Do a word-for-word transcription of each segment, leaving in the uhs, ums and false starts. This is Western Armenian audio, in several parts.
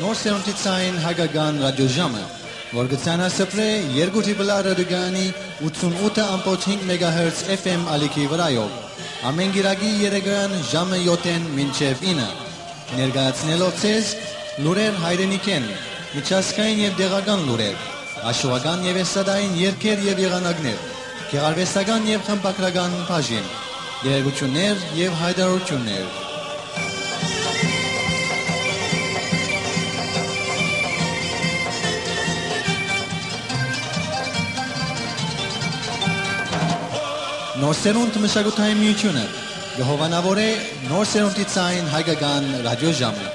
Նոր սերունդի ցային հայկական ռադիոժամը, որ կը ցանասփռէ երկու Triple R ռադիոկայանի ութսունութ ըմբոց հինգ մեգահերց F M ալիքի վրայով, ամէն կիրակի երեկոյեան ժամը յոթ մինչեւ ինը, ներկայացնելով ձեզ լուրեր հայրենիքէն, միջազգային եւ տեղական լուրեր, աշուական եւ էստրադային երգեր եւ եղանակներ, գեղարուեստական եւ խմբագրական բաժին, տեղեկութիւններ եւ յայտարարութիւններ։ Նոր սերունդ մշակութային միութիւնը կը հովանաւորէ նոր սերունդի ցային հայկական ռադիոժամը։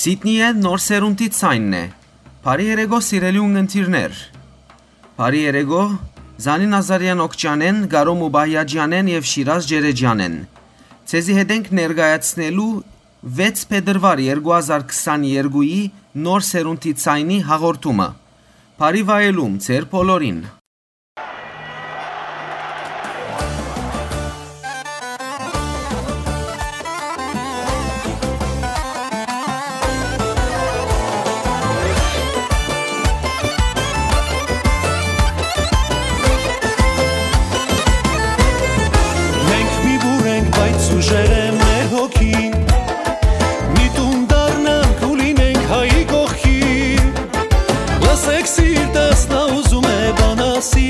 Սիդնիը նոր սերունդի ձայնն է։ Բարի երեկո, սիրելի ունգընտիրներ։ Բարի երեկո Զանի Նազարեան Օքճանեն, Կարո Մուբահիաջյանեն եւ Շիրազ Ջերեջյանեն։ Ձեզի հետ ենք ներկայացնելու վեց փետրուար երկու հազար քսաներկուի նոր սերունդի ձայնի հաղորդումը։ Բարի վայելում ձեր բոլորին։ Մենք մի բուռ ենք, բայց ուժեղ է մեր հոգին։ Մի տուն դառնանք ու լինենք հայի կողքին։ Լսեք, սիրտս նա ուզում է բան ասի,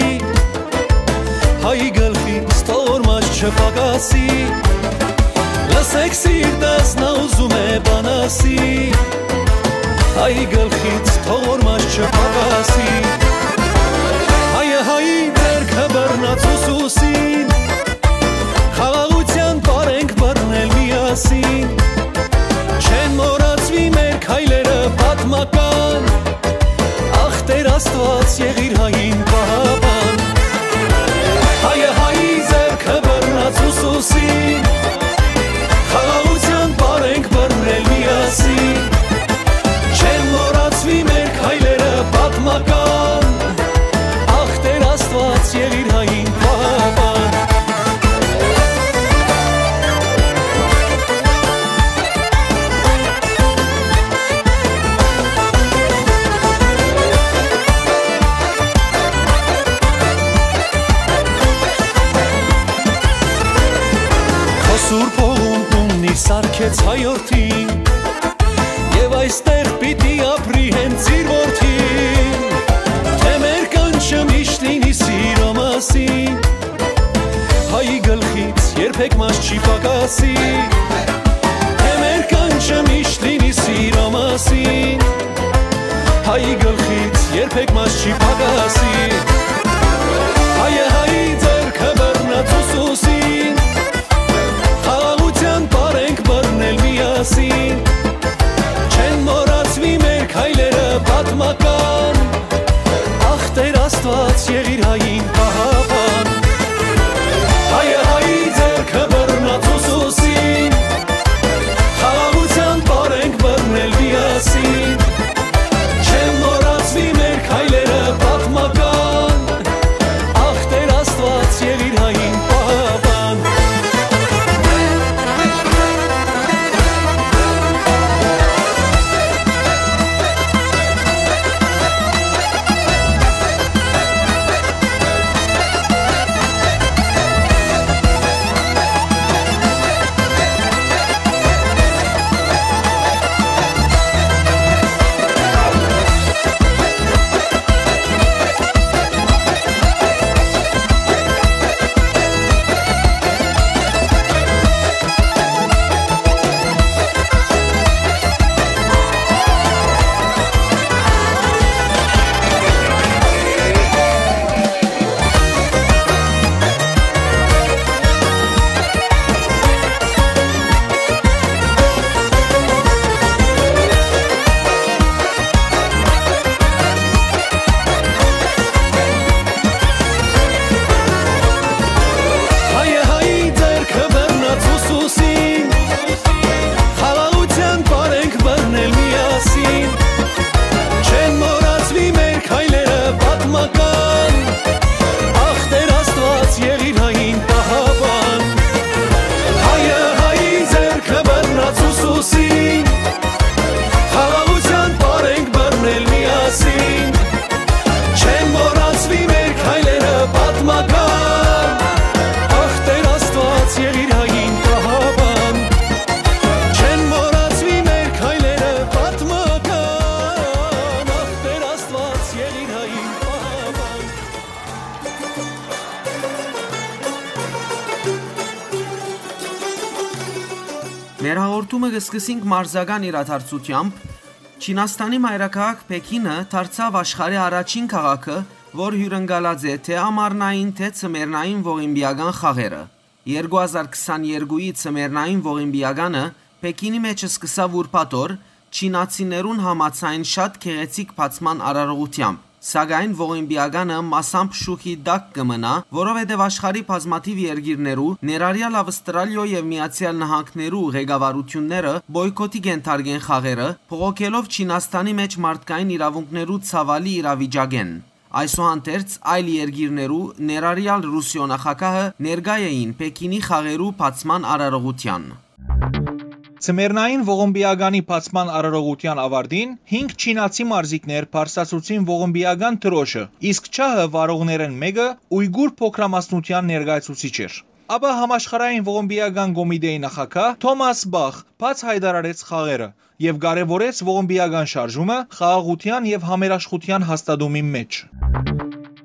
հայի գլխից թող որ մաշ չփակասի։ Լսեք, սիրտս նա ուզում է բան ասի, հայի գլխից թող որ մաշ չփակասի։ Հայը հայի ձեռքը բռնած ուսուսին, խաղաղութեան պար ենք բռնել միասին։ Չեն մոռացուի մեր քայլերը պատմական, ախ, Տեր Աստուած, եղիր հային պահապան։ Հայը հայի ձեռքը բռնած ուսուսին, խաղաղութեան պար ենք բռնել միասին։ Չեն մոռացուի մեր քայլերը պատմական, ախ, Տեր Աստուած, եղիր հային պահապան։ Քո սուրբ հողուն տուննի սարքեց հայորդին, եւ այստեղ պիտի ապրի հենց իր որդին։ Թե մեր կանչը միշտ լինի սիրո մասին, հայի գլխից երբեք մաշ չի պակասի։ Թե մեր կանչը միշտ լինի սիրո մասին, հայի գլխից երբեք մաշ չի պակասի։ Հայը հայի ձեռքը բռնած ուսուսին, խաղաղութեան պար ենք բռնել միասին։ Չեն մոռացուի մեր քայլերը պատմական, ախ, Տեր Աստուած, եղիր հային պահապան։ Հայը հայի ձեռքը բռնած ուսուսին, խաղաղութեան պար ենք բռնել միասին։ Չեն մոռացուի մեր քայլերը պատմական, ախ, Տեր Աստուած, եղիր հային պահապան։ Հայը հայի ձեռքը բռնած ուսուսին, խաղաղութեան պար ենք բռնել միասին։ Չեն մոռացուի մեր քայլերը պատմական, ախ, Տեր Աստուած, եղիր հային պահապան։ Հայը հայի ձեռքը բռնած ուսուսին, խաղաղութեան պար ենք բռնել միասին։ Չեն մոռացուի մեր քայլերը պատմական, ախ, Տեր Աստուած, եղիր հային պահապան։ Չեն մոռացուի մեր քայլերը պատմական, ախ, Տեր Աստուած, եղիր հային պահապան։ Մեր հաղորդումը կը սկսենք մարզական իրադարձութեամբ։ Չինաստանի մայրաքաղաք Փեքինը դարձաւ աշխարհի առաջին քաղաքը, որ հիւրընկալած է թէ ամառնային, թէ ձմեռնային ողիմպիական խաղերը։ Երկու հազար քսաներկուի ձմեռնային ողիմպիականը Փեքինի մէջ սկսաւ ուրբաթ օր, չինացիներուն համաձայն շատ գեղեցիկ բացման արարողությամբ։ Սակայն ողիմպիականը մասամբ շուքի տակ կը մնայ, որովհետեւ աշխարհի բազմաթիւ երկիրներու, ներառյալ Ավստրալիոյ եւ Միացեալ Նահանգներու ղեկավարութիւնները պոյքոթի կ'ենթարկեն խաղերը, բողոքելով Չինաստանի մէջ մարդկային իրաւունքներու ցաւալի իրավիճակէն։ Այսուհանդերձ, այլ երկիրներու, ներառյալ Ռուսիոյ նախագահը, ներկայ էին Պեքինի խաղերու բացման արարողութեան։ Ձմեռնային ողմպիականի բացման արարողութեան աւարտին հինգ չինացի մարզիկներ բարձրացուցին ողմպիական դրոշը, իսկ չահը վարողներէն մէկը Ույգուր փոքրամասնութեան ներկայացուցիչ էր։ Ապա համաշխարհային ողմպիական կոմիտեի նախագահ Թոմաս Պախ բաց յայտարարեց խաղերը եւ կարեւորեց ողմպիական շարժումը խաղաղութեան եւ համերաշխութեան հաստատումին մէջ։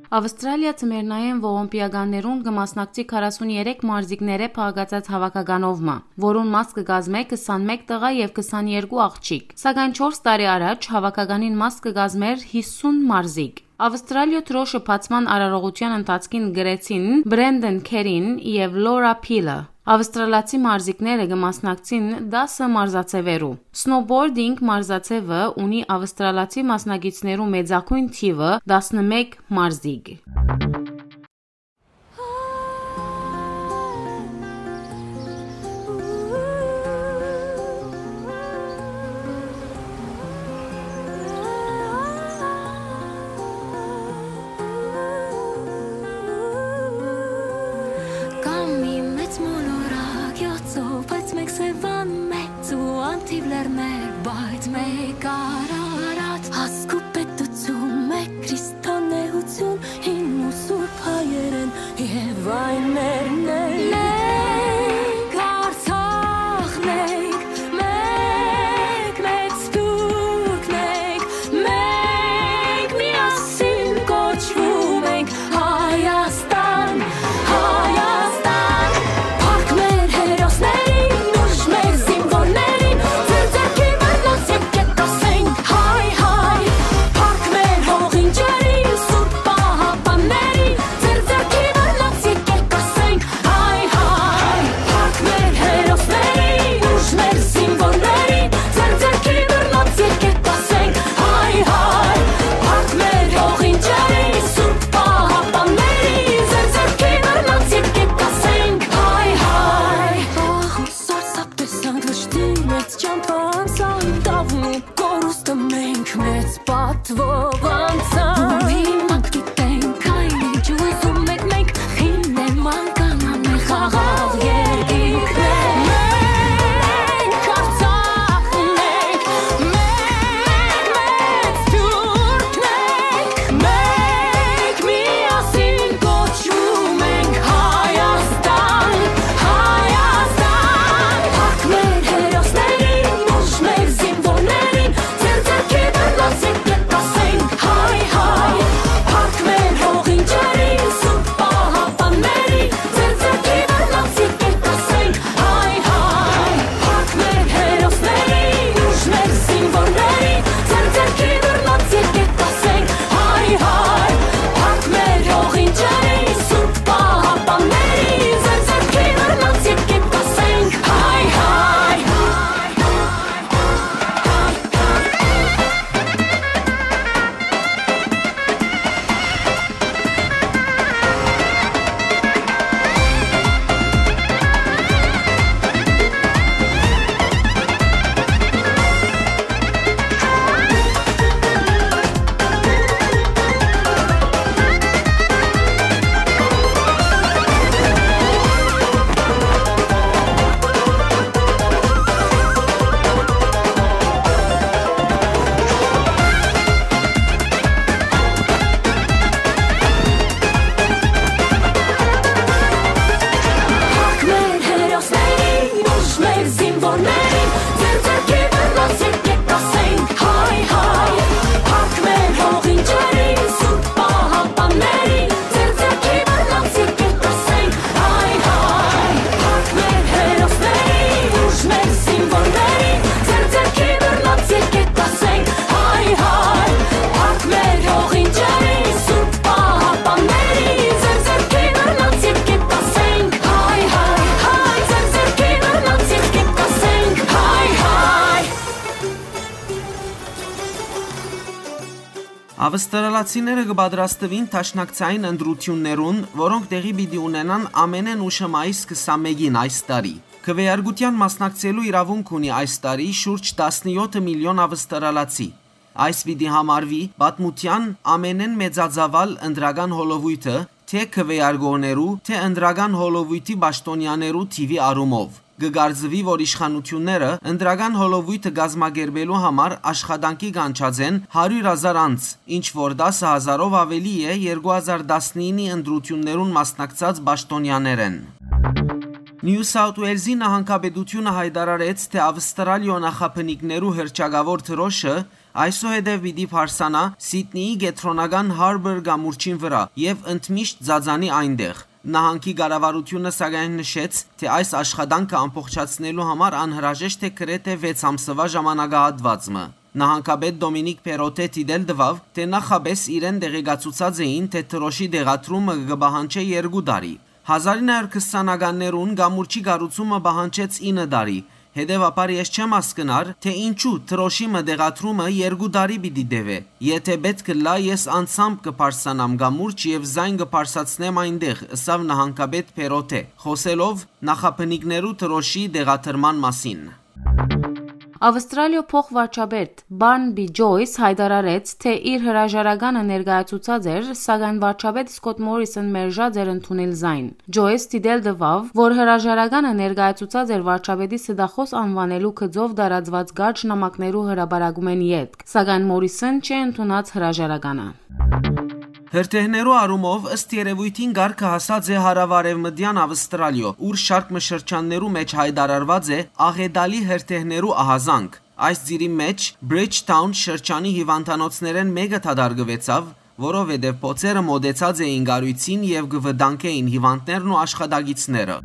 Ավստրալիա ձմեռնային ողմպիականներուն կը մասնակցի քառասուն երեք մարզիկներէ փաղկացած հաւաքականով մը, որուն մաս կը կազմէ քսանմէկ տղայ եւ քսաներկու աղջիկ, սակայն չորս տարի առաջ հաւաքականին մաս կը կազմէր յիսուն մարզիկ։ Ավստրալիոյ դրոշը բացման արարողութեան ընթացքին կրեցին Բրենդեն Քերին եւ Լորա Փիլը։ Ավստրալացի մարզիկները կը մասնակցին տասը մարզաձեւերու։ Սնոուբորդինգ մարզաձեւը ունի ավստրալացի մասնակիցներու մեծագոյն թիւը տասնմէկ մարզիկ։ Կայ մի մեծ մոլորակ, յոթ ծով, բայց մէկ Սեւան, մեծ ու անթիւ լեռներ, բայց մէկ Արարատ, հասկու պետութիւն, մէկ քրիստոնէութիւն, հին ու սուրբ հայերէն եւ այն մերն է։ Մենք Արցախն ենք, մեկ մեծ թուրքն ենք, մենք միասին կոչվում ենք Հայաստան, Հայաստան։ Փառք մեր հերոսներին, ուժ մեր զինվորներին, ձեր ձեռքի բռնած եկեք ասենք հայ, հայ։ Փառք մեր հողին, ջրին, սուրբ պահապաններին, ձեր ձեռքի բռնած եկեք ասենք Ավստրալացիները կը պատրաստուին դաշնակցային ընտրութիւններուն, որոնք տեղի պիտի ունենան ամենէն ուշը մայիս քսանմէկին այս տարի։ Քվեարկութեան մասնակցելու իրաւունք ունի այս տարի շուրջ տասնեօթ միլիոն ավստրալացի։ Այս պիտի համարուի պատմութեան ամենէն մեծածաւալ ընտրական հոլովոյթը, թէ քվեարկողներու, թէ ընտրական հոլովոյթի պաշտօնեաներու թիւի առումով։ Կը կարծուի, որ իշխանութիւնները ընտրական հոլովոյթը կազմակերպելու համար աշխատանքի կանչած են հարիւր հազար անձ, ինչ որ տասը հազարով աւելի է երկու հազար տասնինի ընտրութիւններուն մասնակցած պաշտօնեաներէն։ Նիու Սաութ Ուելզի նահանգապետութիւնը յայտարարեց, թէ Ավստրալիոյ նախաբնիկներու հռչակաւոր դրօշը այսուհետեւ պիտի բարձրանայ Սիդնիի կեդրոնական Հարբոր կամուրջին վրայ եւ ընդմիշտ ծածանի այնտեղ։ Նահանգի կառավարութիւնը սակայն նշեց, թէ այս աշխատանքը ամբողջացնելու համար անհրաժեշտ է գրեթէ վեց ամսուայ ժամանակահատուած մը։ Նահանգապետ Դոմինիկ Փերոթէ դիտել տուաւ, թէ նախապէս իրեն տեղեկացուցած էին, թէ դրօշի տեղադրումը կը պահանջէ երկու տարի։ Հազար ինը հարիւր քսանականներուն կամուրջի կառուցումը պահանջեց ինը տարի, հետեւաբար ես չեմ հասկնար, թէ ինչու դրօշի մը տեղադրումը երկու տարի պիտի տեւէ։ Եթէ պէտք ըլլայ, ես անձամբ կը բարձրանամ կամուրջ եւ զայն կը բարձրացնեմ այնտեղ, ըսաւ նահանգապետ Փերոթէ, խօսելով նախաբնիկներու դրօշի տեղադրման մասին։ Ավստրալիոյ փոխվարչապետ Բարնբի Ջոյս յայտարարեց, թէ իր հրաժարականը ներկայացուցած էր, սակայն վարչապետ Սկոթ Մորիսոն մերժած էր ընդունել զայն։ Ջոյս դիտել տուաւ, որ հրաժարականը ներկայացուցած էր վարչապետի ստախոս անուանելու գծով տարածուած կարճ նամակներու հրապարակումէն ետք, սակայն Մորիսոն չի ընդունած հրաժարականը։ Հրդեհներու առումով, ըստ երեւոյթին, կարգը հասած է հարաւարեւմտեան Ավստրալիոյ, ուր շարք մը շրջաններու մէջ յայտարարուած է աղետալի հրդեհներու ահազանգ։ Այս ծիրի մէջ Բրիջթաուն շրջանի հիւանդանոցներէն մէկը դատարկուեցաւ, որովհետեւ բոցերը մօտեցած էին կառոյցին եւ կը վտանգէին հիւանդներն ու աշխատակիցները։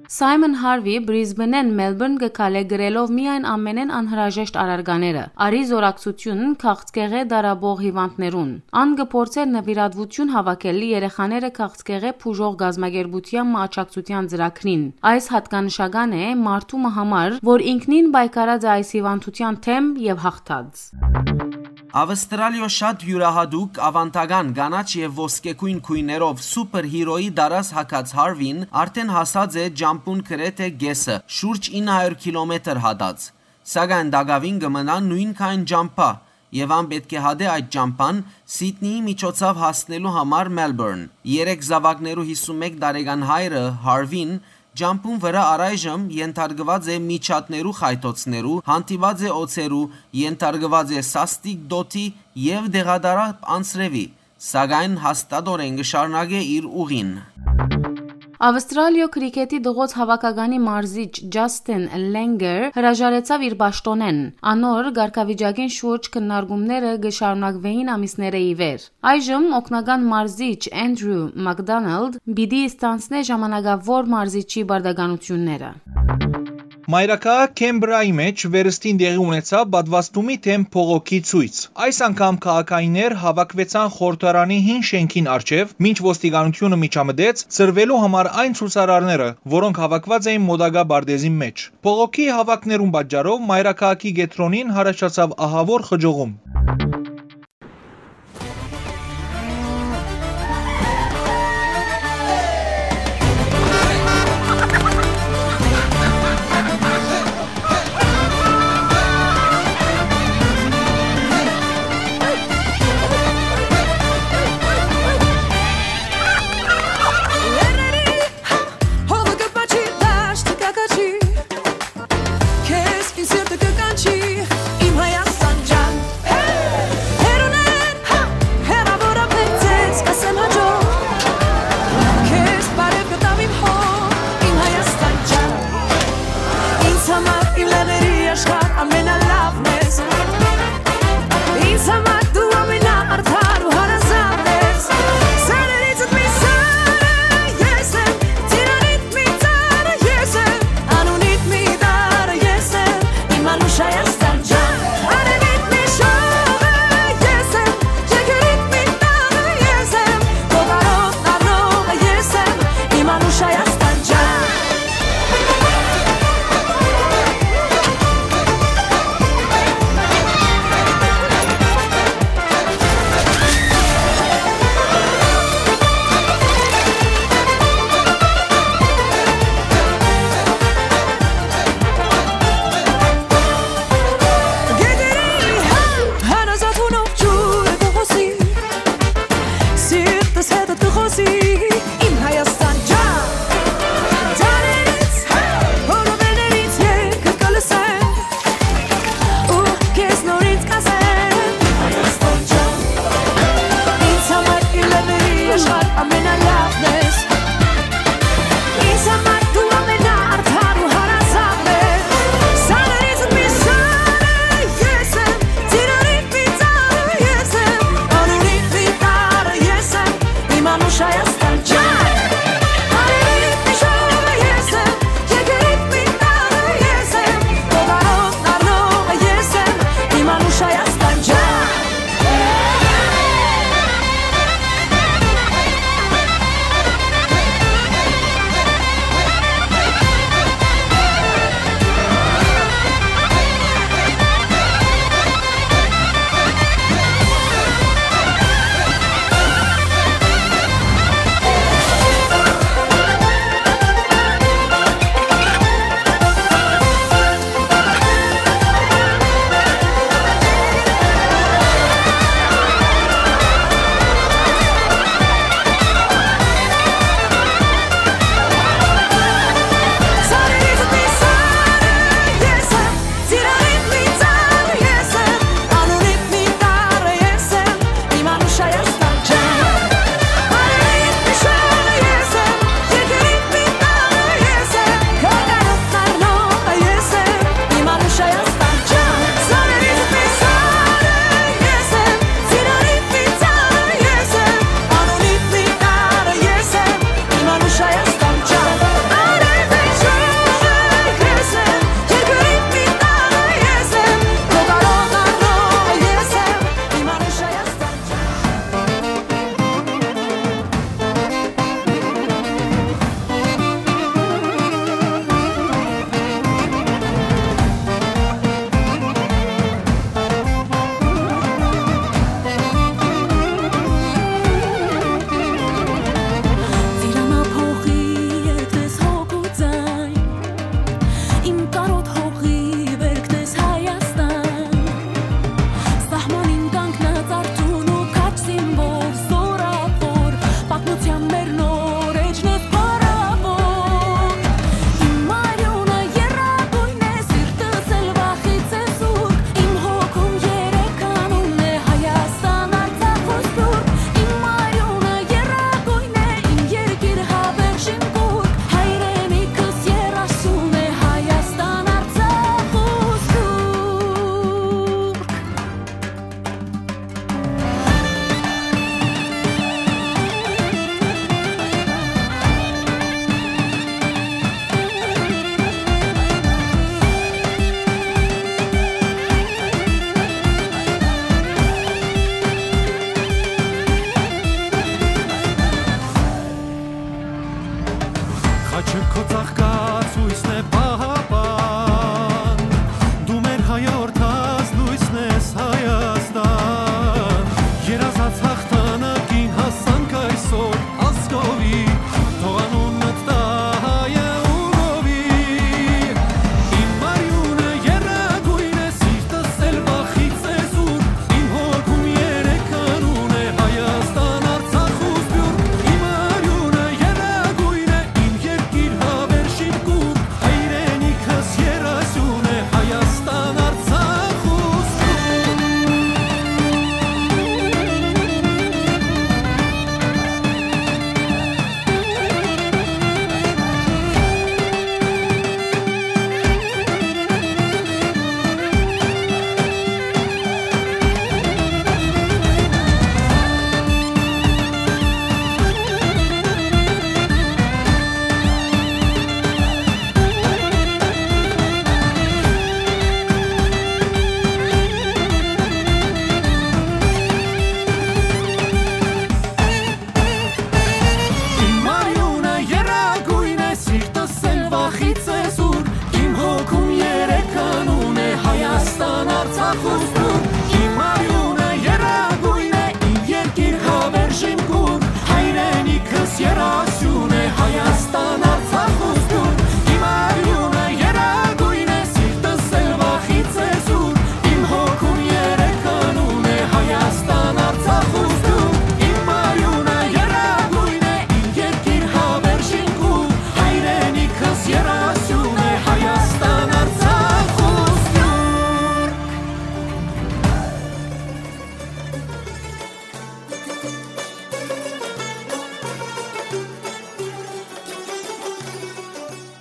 Սայմոն Հարվի Բրիզբենէն Մելբուրն կը քալէ գրելով միայն ամենէն անհրաժեշտ առարկաները, արի զօրակցութիւն քաղցկեղէ տառապող հիւանդներուն։ Ան կը փորձէ նուիրատուութիւն հաւաքել երեխաները քաղցկեղէ բուժող կազմակերպութեան մը աջակցութեան ծրագրին։ Այս յատկանշական է մարդու մը համար, որ ինքնին պայքարած է այս հիւանդութեան դէմ եւ յաղթած։ Ավստրալիոյ շատ իւրայատուկ, աւանդական, կանաչ եւ ոսկեգոյն գոյներով սուպեր հիրոյի տարազ հագած Հարվին արդէն հասած է ճամբուն գրեթէ կէսը, շուրջ ինը հարիւր քիլոմեթր հատած։ Սակայն տակաւին կը մնայ նոյնքայն ճամբայ, եւ ան պէտք է հատէ այդ ճամբան Սիդնիի միջոցաւ հասնելու համար Մելբուրն։ Երեք զաւակներու յիսունմէկ տարեկան հայրը՝ Հարվին, ճամբուն վրայ առայժմ ենթարկուած է միջատներու խայթոցներու, հանդիպած է օձերու, ենթարկուած է սաստիկ դօթի եւ տեղատարափ անձրեւի, սակայն հաստատօրէն կը շարունակէ իր ուղին։ Ավստրալիոյ քրիքեթի տղոց հաւաքականի մարզիչ Ջասթին Լենգեր հրաժարեցաւ իր պաշտօնէն։ Անոր կարգավիճակին շուրջ քննարկումները կը շարունակուէին ամիսներէ ի վեր։ Այժմ օգնական մարզիչ Անդրու Մակդոնալդ պիտի ստանձնէ ժամանակաւոր մարզիչի պարտականութիւնները։ Մայրաքաղաք Քեմբրայի մէջ վերստին տեղի ունեցաւ պատվաստումի դէմ բողոքի ցոյց։ Այս անգամ քաղաքայիններ հաւաքուեցան խորհրդարանի հին շէնքին առջեւ, մինչ ոստիկանութիւնը միջամտեց՝ ցրուելու համար այն ցուցարարները, որոնք հաւաքուած էին մօտակայ պարտէզին մէջ։ Բողոքի հաւաքներուն պատճառով մայրաքաղաքի կեդրոնին յառաջացաւ ահաւոր խճողում։ Հողը կպաչի, դաշտը կակաչի, քեզ իմ սիրտը կկանչի, իմ Հայաստան ջան։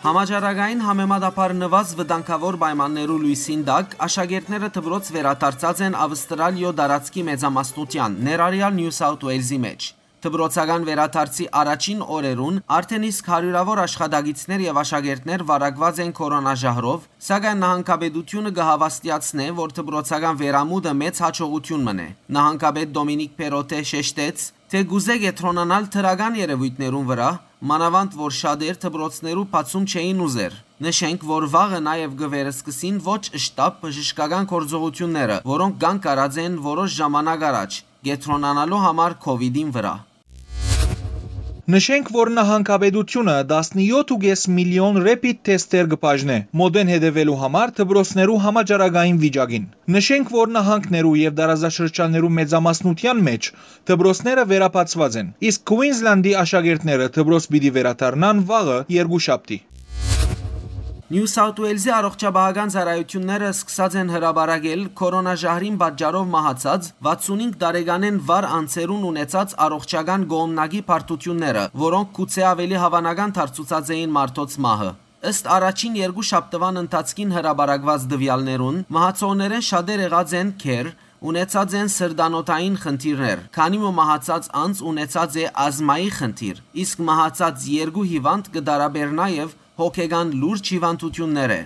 Համաճարակային համեմատաբար նուազ վտանգաւոր պայմաններու լոյսին տակ աշակերտները դպրոց վերադարձած են Ավստրալիոյ տարածքի մեծամասնութեան, ներառեալ Նիու Սաութ Ուելզի մէջ։ Դպրոցական վերադարձի առաջին օրերուն արդէն իսկ հարիւրաւոր աշխատակիցներ եւ աշակերտներ վարակուած են քորոնա ժահրով, սակայն նահանգապետութիւնը կը հաւաստիացնէ, որ դպրոցական վերամուտը մեծ յաջողութիւն մըն է։ Նահանգապետ Դոմինիկ Պերոտէ շեշտեց, թէ կուզէ կեդրոնանալ դրական երեւոյթներուն վրայ, մանաւանդ որ շատեր դպրոցներու բացում չէին ուզեր։ Նշենք, որ վաղը նաեւ կը վերսկսին ոչ շտապ բժշկական գործողութիւնները, որոնք կանգ առած են որոշ ժամանակ առաջ, կեդրոնանալու համար քովիդին վրայ։ Նշենք, որ նահանգապետութիւնը տասնեթի միլիոն rapid թեսթեր կը բաժնէ՝ մօտէն հետեւելու համար դպրոցներու համաճարակային վիճակին։ Նշենք, որ նահանգներու եւ տարածաշրջաններու մեծամասնութեան մէջ դպրոցները վերաբացուած են, իսկ Քուինզլանդի աշակերտները դպրոց պիտի վերադառնան վաղը, երկուշաբթի։ Նիու Սաութ Ուելզի առողջապահական ծառայութիւնները սկսած են հրապարակել քորոնա ժահրին պատճառով մահացած վաթսունհինգ տարեկանէն վար անձերուն ունեցած առողջական կողմնակի բարդութիւնները, որոնք գուցէ աւելի հաւանական դարձուցած էին մարդոց մահը։ Ըստ առաջին երկու շաբթուան ընթացքին հրապարակուած տուեալներուն, մահացողներէն շատեր եղած են գեր, ունեցած են սրտանոթային խնդիրներ, քանի մը մահացած անձ ունեցած է ազմայի խնդիր, իսկ մահացած երկու հիվանդ կը տարապէր նաեւ հոգեկան լուրջ հիվանդութիւններէ։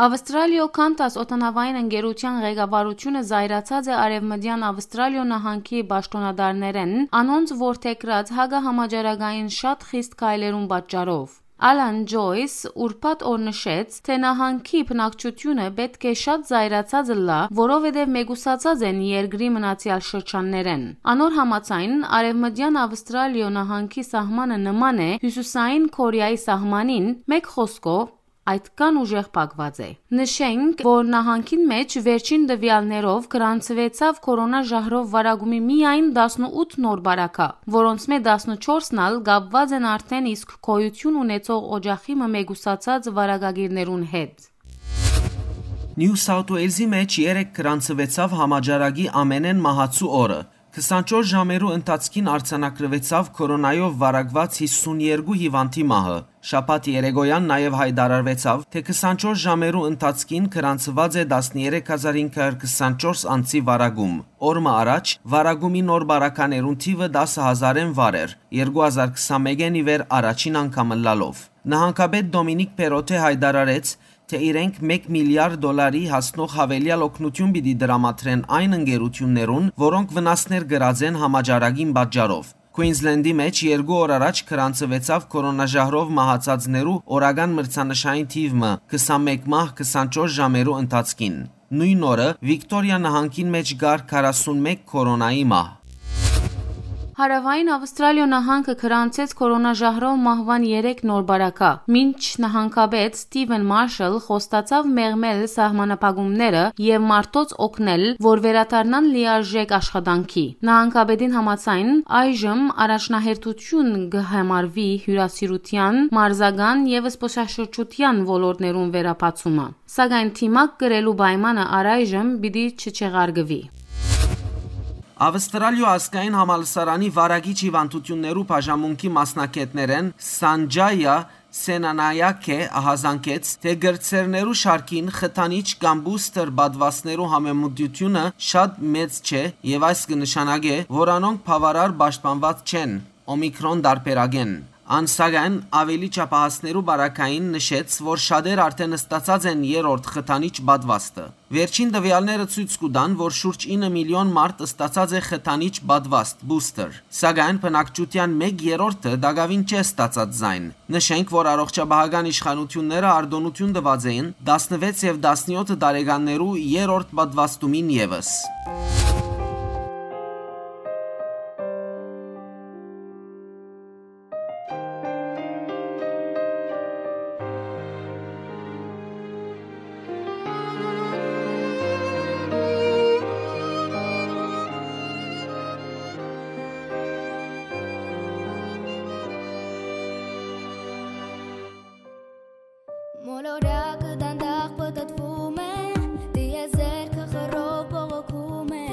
Ավստրալիոյ Qantas օդանաւային ընկերութեան ղեկավարութիւնը զայրացած է Արեւմտեան Ավստրալիոյ նահանգի պաշտօնատարներէն, անոնց որդեգրած հակահամաճարակային շատ խիստ քայլերուն պատճառով։ Ալան Ջոյս ուրբաթ օր նշեց, թէ նահանգի բնակչութիւնը պէտք է շատ զայրացած ըլլայ, որովհետեւ մեկուսացած են երկրի մնացեալ շրջաններէն։ Անոր համաձայն, Արեւմտեան Ավստրալիոյ նահանգի սահմանը նման է Հիւսիսային Քորեայի սահմանին, մէկ խօսքով, այդքան ուժեղ փակուած է։ Նշենք, որ նահանգին մէջ վերջին տուեալներով գրանցուեցաւ քորոնա ժահրով վարակումի միայն տասնութ նոր բարակայ, որոնցմէ տասնչորսն ալ կապուած են արդէն իսկ գոյութիւն ունեցող օճախի մը մեկուսացած վարակագիրներուն հետ։ Նիու Սաութ Ուելզի մէջ երեկ գրանցուեցաւ համաճարակի ամենէն մահացու օրը։ Քսանչորս ժամերու ընթացքին արձանագրուեցաւ քորոնայով վարակուած հիսուն երկու հիվանդի մահը։ Շաբաթ երեկոյան նաեւ յայտարարուեցաւ, թէ քսանչորս ժամերու ընթացքին գրանցուած է տասներեք հազար հինգ հարյուր քսանչորս անձի վարակում։ Օր մը առաջ վարակումի նոր բարականերուն թիւը տասը հազարէն վար էր, երկու հազար քսանմէկէն ի վեր առաջին անգամ ըլլալով։ Նահանգապետ Դոմինիկ Պերոտէ յայտարարեց, թէ իրենք մէկ միլիարդ դոլարի հասնող յաւելեալ օգնութիւն պիտի տրամադրեն այն ընկերութիւններուն, որոնք վնասներ կրած են համաճարակին պատճառով։ Քուինզլենդի մէջ երկու օր առաջ գրանցուեցաւ քորոնա ժահրով մահացածներու օրական մրցանշային թիւ մը՝ քսանմէկ մահ քսանչորս ժամերու ընթացքին։ Նոյն օրը Վիկտորիա նահանգին մէջ կար քառասունմէկ քորոնայի մահ։ Հարաւային Ավստրալիոյ նահանգը գրանցեց քորոնա ժահրով մահուան երեք նոր բարակայ, մինչ նահանգապետ Սթիվեն Մարշալ խոստացաւ մեղմել սահմանափակումները եւ մարդոց օգնել, որ վերադառնան լիարժէք աշխատանքի։ Նահանգապետին համաձայն, այժմ առաջնահերթութիւն կը համարուի հիւրասիրութեան, մարզական եւ զբօսաշրջութեան ոլորտներուն վերաբացումը, սակայն դիմակ կրելու պայմանը առայժմ պիտի չչեղարկուի։ Ավստրալիոյ ազգային համալսարանի վարակիչ հիվանդութիւններու բաժանմունքի մասնագէտներէն Սանջայա Սենանայակէ ահազանգեց, թէ կրտսերներու շարքին խթանիչ կամ բուսթեր պատուաստներու համեմտությունը շատ մեծ չէ եւ այս կը նշանակէ, որ անոնք բաւարար պաշտպանուած չեն Օմիկրոն տարբերակէն։ Ան, սակայն, աւելի չափահասներու բարակային նշեց, որ շատեր արդէն ստացած են երրորդ խթանիչ պատուաստը։ Վերջին տուեալները ցոյց կու տան, որ շուրջ ինը միլիոն մարդ ստացած է խթանիչ պատվաստ, բուսթեր, սակայն բնակչութեան մէկ երրորդը տակաւին չէ ստացած զայն։ Նշենք, որ առողջապահական իշխանութիւնները արտօնութիւն տուած էին տասնվեց եւ տասնեօթ տարեկաններու երրորդ պատվաստումին եւս։ Մոլորակը դանդաղ պտտվում է, տիեզերքը խռով բողոքում է,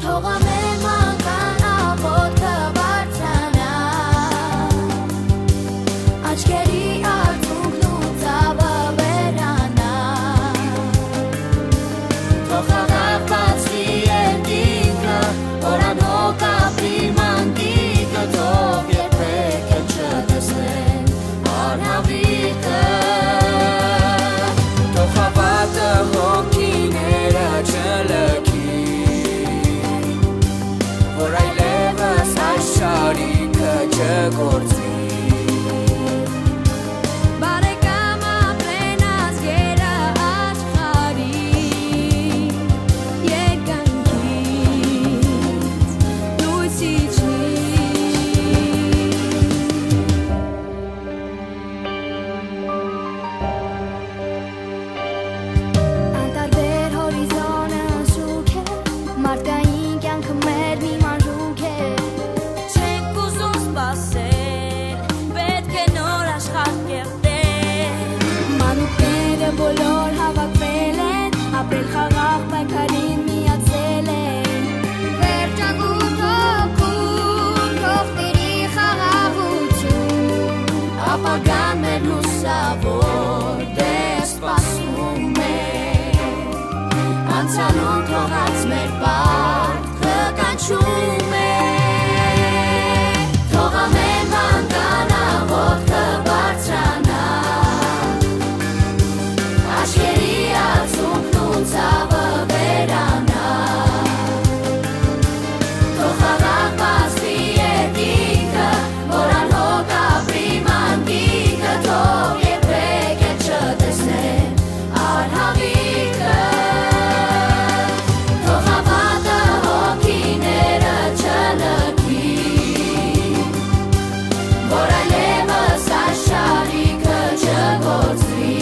Թող ամէն մանկան աղոթքը բարձրանայ, աչքերի արցունքն ու ցաւը վերանայ։ Թող խաղաղ բացուի երկինքը, որ անհոգ ապրի մանկիկը, թող երբեք չտեսնեն անհավիկը, թող հաւատը հոգիները չլքի, որ այլեւս այս շարիքը չգործվի։ Բարեկամ, ապրեն ազգերը աշխարհի, երկնքից լույս իջնի։ Անտարբեր հորիզոնը շուք է, մարդկային կյանքը մեր մի մանրուք է։ Չենք ուզում սպասել, պէտք է նոր աշխարհ կերտել։ Մանուկները բոլոր հաւաքվել են, ապրել խաղաղ պայքարին միացել են։ Վերջակու թոքում թող տիրի խաղաղութիւն, ապագան մեր լուսաւոր դեր սպասում է։ Անցյալում թողած մեր պարտքը կանչում է։ Թող ամէն մանկան աղոթքը բարձրանայ, աչքերի արցունքն ու ցաւը վերանայ։ Թող խաղաղ բացուի երկինքը, որ անհոգ ապրի մանկիկը, թող երբեք էլ չտեսնեն անհավիկը, թող հաւատը հոգիները չլքի, որ այլեւս այս շարիքը չգործվի։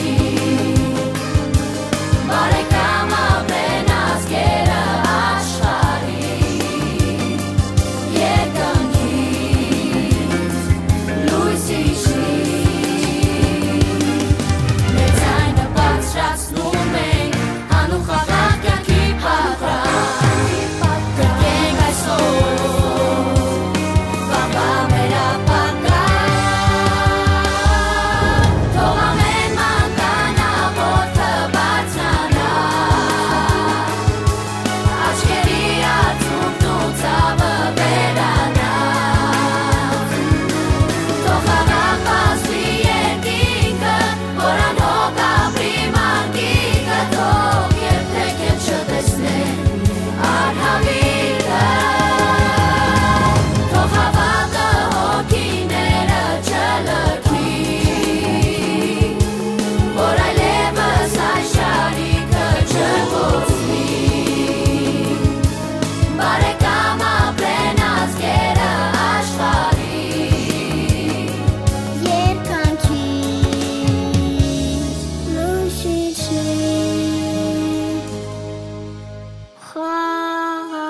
Բարեկամ, ապրեն ազգերը աշխարհի, երկնքից լույս իջնի։ Մեր ձայնը բարձրացնում ենք, անուխաղաղ կյանքի պատրաստ։ Կրկենք այսօր, վաղվա մեր ապագա, թող ամեն մանկան աղոթքը բարձրանայ, աչքերի արցունքն ու ցաւը վերանայ, թող խաղաղ բացուի երկինքը, որ անհոգ ապրի մանկիկը, թող երբեք էլ չտեսնեն անհավիկը, թող հաւատը հոգիները չլքի, որ այլեւս այս շարիքը չկորցնի։ Բարեկամ, ապրեն ազգերը աշխարհի, երկնքից լույս իջնի, խաղաղ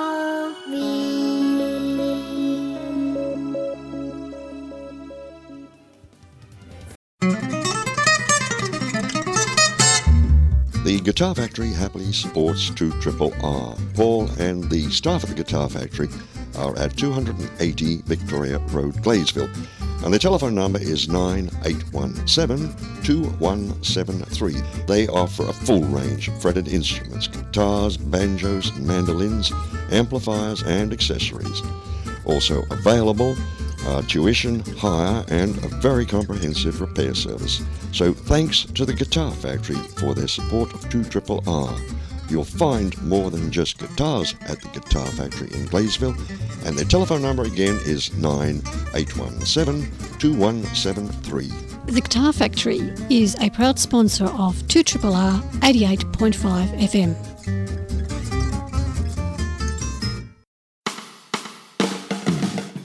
The Guitar Factory happily supports two triple R. Paul and the staff at the Guitar Factory are at two hundred and eighty Victoria Road, Gladesville. And their telephone number is nine eight one seven, two one seven three. They offer a full range of fretted instruments, guitars, banjos, mandolins, amplifiers, and accessories. Also available are tuition, hire, and a very comprehensive repair service. So thanks to the Guitar Factory for their support of two triple R. You'll find more than just guitars at the Guitar Factory in Gladesville, and their telephone number again is nine eight one seven, two one seven three. The Guitar Factory is a proud sponsor of two triple R eighty-eight point five F M.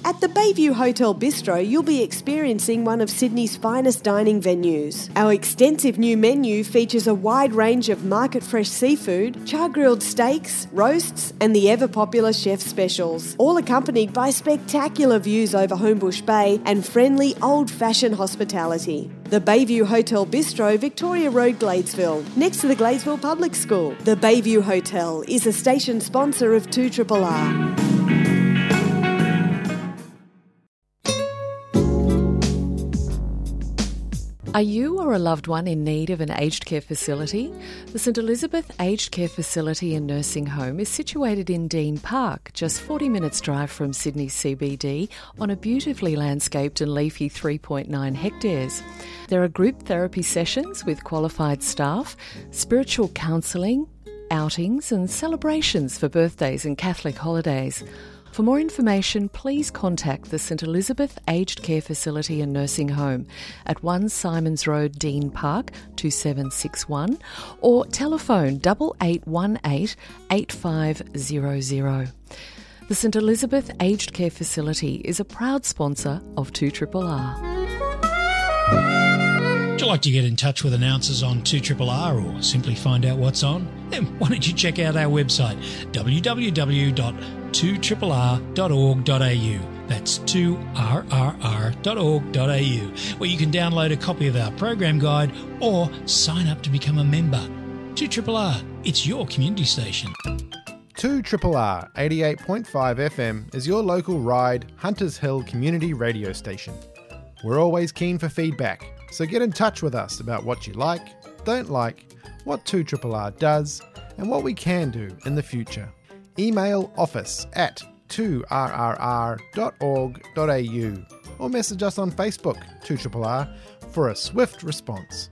At the Bayview Hotel Bistro, you'll be experiencing one of Sydney's finest dining venues. Our extensive new menu features a wide range of market fresh seafood, char grilled steaks, roasts, and the ever popular chef specials, all accompanied by spectacular views over Homebush Bay and friendly old fashioned hospitality. The Bayview Hotel Bistro, Victoria Road, Gladesville, next to the Gladesville Public School. The Bayview Hotel is a station sponsor of two triple R. Are you or a loved one in need of an aged care facility? The St Elizabeth Aged Care Facility and Nursing Home is situated in Dean Park, just forty minutes' drive from Sydney C B D, on a beautifully landscaped and leafy three point nine hectares. There are group therapy sessions with qualified staff, spiritual counselling, outings and celebrations for birthdays and Catholic holidays. For more information, please contact the St Elizabeth Aged Care Facility and Nursing Home at one Simons Road, Dean Park, two seven six one, or telephone double eight one eight, eight five zero zero. The St Elizabeth Aged Care Facility is a proud sponsor of two triple R. Would you like to get in touch with announcers on two triple R or simply find out what's on? Then why don't you check out our website, w w w dot two triple r dot org dot a u. That's two r r r dot org dot a u, where you can download a copy of our program guide or sign up to become a member. Two triple R, it's your community station. Two triple R eighty-eight point five F M is your local Ryde, Hunters Hill community radio station. We're always keen for feedback, so get in touch with us about what you like, don't like, what two triple R does, and what we can do in the future. Email office at two r r r dot org dot a u or message us on Facebook, two triple R, for a swift response.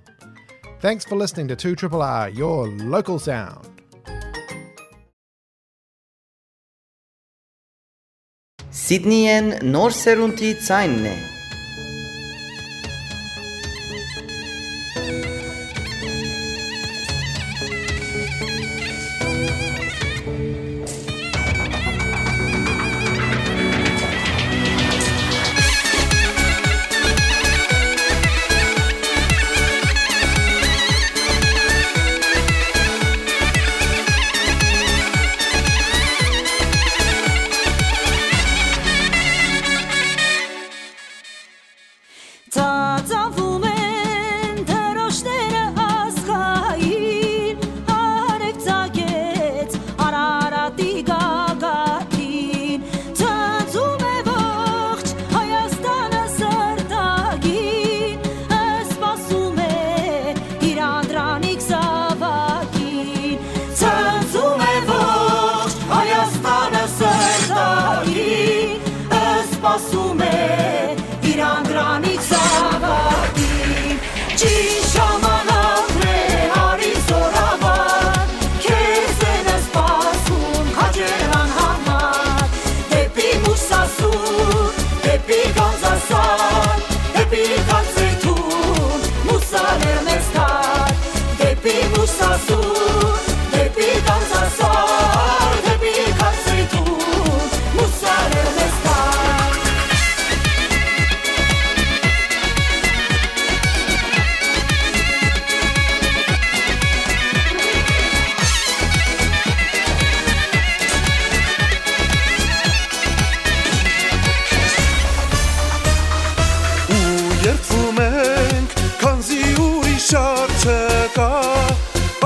Thanks for listening to two triple R, your local sound. Սիդնիեն նոր սերունդի ձայնն է։ Ծածանվում են դրոշները ազգային, արեւ ծագեց Արարատի գագաթին, ծածում է ողջ Հայաստանը սրտագին, սպասում է իր անդրանիկ զաւակին, ծածում է ողջ Հայաստանը սրտագին, սպասում է իր անդրանիկ զաւակին, ճիշտ ժամանակն է, արի զօրավար, քեզ են սպասում քաջերան համար, դեպի Մուսասուր, դեպի Գանձասար, դեպի Գանձեթուն, Մուսալեր մեզ դար, դեպի Մուսասուր, դեպի Գանձասար, դեպի Գանձեթուն, Մուսալեր մեզ դար։ Ու երդվում ենք, քանզի ուրիշ արժե կա,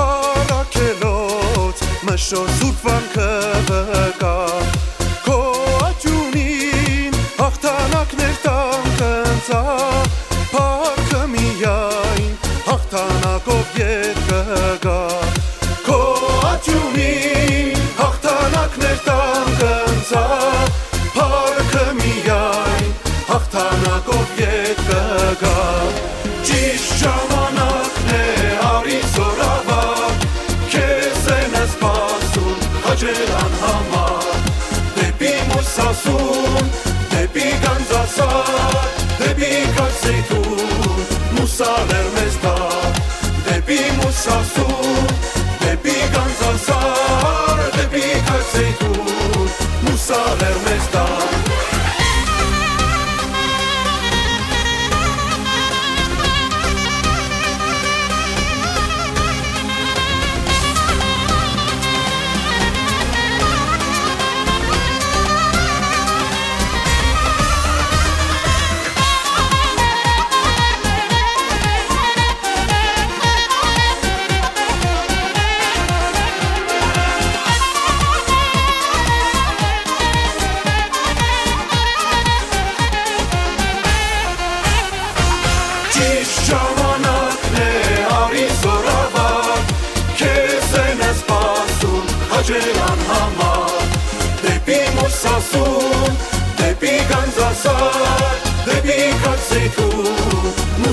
առաքելոց մշո սուրբ վանքը վկայ։ Քո աճունին հաղթանակներ տան կընծայ, փառքը միայն հաղթանակով ետ կգայ։ Քո աճունին հաղթանակներ տան կընծայ, փառքը միայն հաղթանակով ետ կգայ։ Ճիշտ ժամանակն է, արի զօրավար, քեզ են սպասում քաջերան համար, դեպի Մուսասուն, դեպի Գանձասար, դեպի Գանձեթուն, Մուսալեր մեզ դար, դեպի Մուսասուն, դեպի Գանձասար, դեպի Գանձեթուն, Մուսալեր մեզ դար։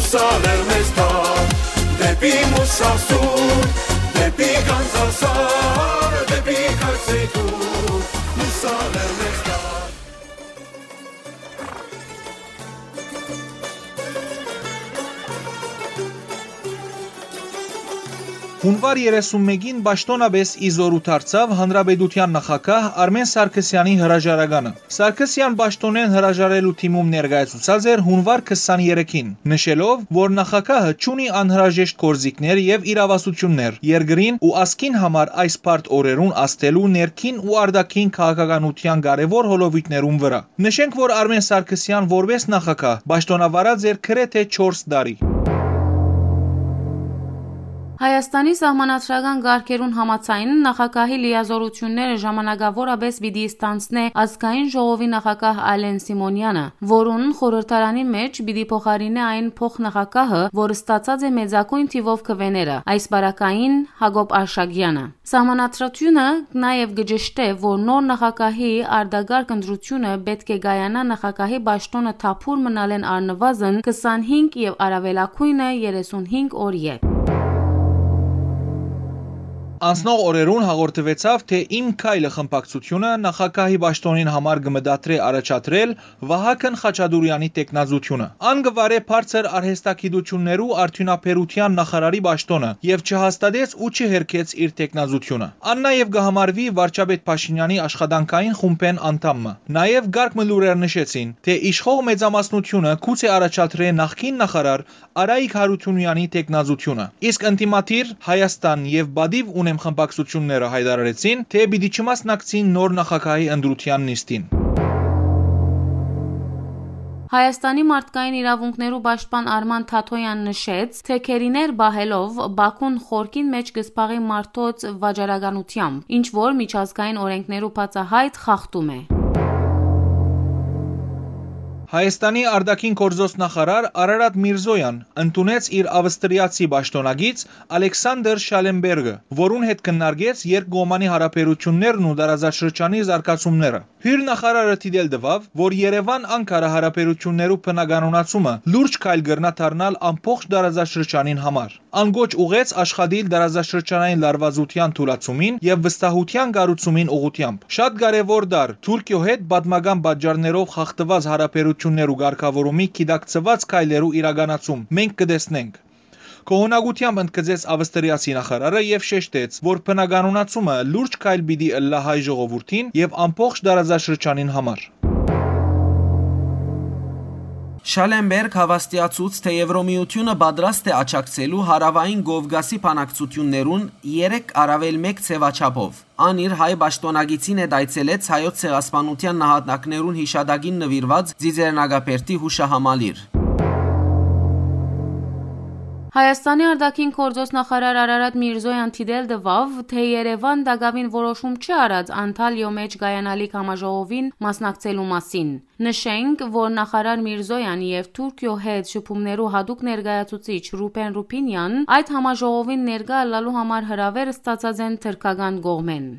Սալեր մեզ թափ դեպի Մուսասուր, դեպի Գանձասար, դեպի Քարսեյթուր, սալեր մեզ թափ։ Հունուար երեսուն մէկին պաշտօնապէս ի զօրու դարձաւ Հանրապետութեան նախագահ Արմէն Սարգսեանի հրաժարականը։ Սարգսեան պաշտօնէն հրաժարելու դիմում ներկայացուցած էր հունուար քսանեթերեքին, նշելով, որ նախագահը չունի անհրաժեշտ գործիքներ եւ իրաւասութիւններ երկրին ու ազգին համար այս բարդ օրերուն ազդելու ներքին ու արտաքին քաղաքականութեան կարեւոր հոլովոյթներուն վրայ։ Նշենք, որ Արմէն Սարգսեան որպէս նախագահ պաշտօնավարած էր գրեթէ չորս տարի։ Հայաստանի սահմանադրական կարգերուն համաձայն, նախագահի լիազօրութիւնները ժամանակաւորապէս պիտի ստանձնէ Ազգային ժողովի նախագահ Ալեն Սիմոնեանը, որուն խորհրդարանի մէջ պիտի փոխարինէ այն փոխնախագահը, որ ստացած է մեծագոյն թիւով քուէները, այս պարագային՝ Յակոբ Արշակեանը։ Սահմանադրութիւնը նաեւ կը ճշտէ, որ նոր նախագահի արտակարգ ընտրութիւնը պէտք է կայանայ նախագահի պաշտօնը թափուր մնալէն առնուազն քսանհինգ եւ առաւելագոյնը երեսունհինգ օր ետք։ Անցնող օրերուն հաղորդուեցաւ, թէ Իմ քայլը խմբակցութիւնը նախագահի պաշտօնին համար կը մտադրէ առաջադրել Վահագն Խաչատուրեանի թեկնածութիւնը։ Ան կը վարէ բարձր արհեստագիտութիւններու արդիւնաբերութեան նախարարի պաշտօնը եւ չհաստատեց ու չհերքեց իր թեկնածութիւնը։ Ան նաեւ կը համարուի վարչապետ Փաշինեանի աշխատանքային խումբէն անդամ մը։ Նաեւ կարգ մը լուրեր նշեցին, թէ իշխող մեծամասնութիւնը գուցե առաջադրէ նախկին նախարար Արայիկ Յարութիւնեանի թեկնածութիւնը, իսկ ընդդիմադիր Հայաստան եւ պատիւ ունեմ խմբակցութիւնները յայտարարեցին, թէ պիտի չմասնակցին նոր նախագահի ընտրութեան նիստին։ Հայաստանի մարդկային իրաւունքներու պաշտպան Արման Թաթոյան նշեց, թէ գերիներ պահելով՝ Բաքուն խորքին մէջ կը զբաղի մարդոց վաճառականութեամբ, ինչ որ միջազգային օրէնքներու բացահայտ խախտում է։ Հայաստանի արտաքին գործոց նախարար Արարատ Միրզոյան ընդունեց իր ավստրիացի պաշտօնակից Ալեքսանդր Շալենբերգը, որուն հետ քննարկեց երկկողմանի յարաբերութիւններն ու տարածաշրջանի զարգացումները։ Հիւր նախարարը դիտել տուաւ, որ Երեւան-Անկարա յարաբերութիւններու բնականոնացումը լուրջ քայլ կրնայ դառնալ ամբողջ տարածաշրջանին համար։ Ան կոչ ուղղեց աշխատիլ տարածաշրջանային լարուածութեան թուլացումին եւ վստահութեան կառուցումին ուղղութեամբ։ Շատ կարեւոր տարր Թուրքիոյ հետ պատմական պատճառներով խախտուած յարաբերութիւններու կարգաւորումի գիտակցուած քայլերու իրականացում մենք կը տեսնենք, գոհունակութեամբ ընդգծեց ավստրիացի նախարարը եւ շեշտեց, որ բնականոնացումը լուրջ քայլ պիտի ըլլայ հայ ժողովուրդին եւ ամբողջ տարածաշրջանին համար։ Շալենբերգ հաւաստիացուց, թէ Եվրոմիութիւնը պատրաստ է աջակցելու Հարաւային Կովկասի բանակցութիւններուն երեք առաւել մէկ ձեւաչափով։ Ան իր հայ պաշտօնակիցին հետ այցելեց Հայոց ցեղասպանութեան նահատակներուն յիշատակին նուիրուած Ծիծեռնակաբերդի յուշահամալիր։ Հայաստանի արտաքին գործոց նախարար Արարատ Միրզոյան դիտել տուաւ, թէ Երեւան տակաւին որոշում չի առած Անտալիոյ մէջ կայանալիք համաժողովին մասնակցելու մասին։ Նշենք, որ նախարար Միրզոյան եւ Թուրքիոյ հետ շփումներու յատուկ ներկայացուցիչ Ռուբեն Ռուբինեան այդ համաժողովին ներկայ ըլլալու համար հրաւէր ստացած են թրքական կողմէն։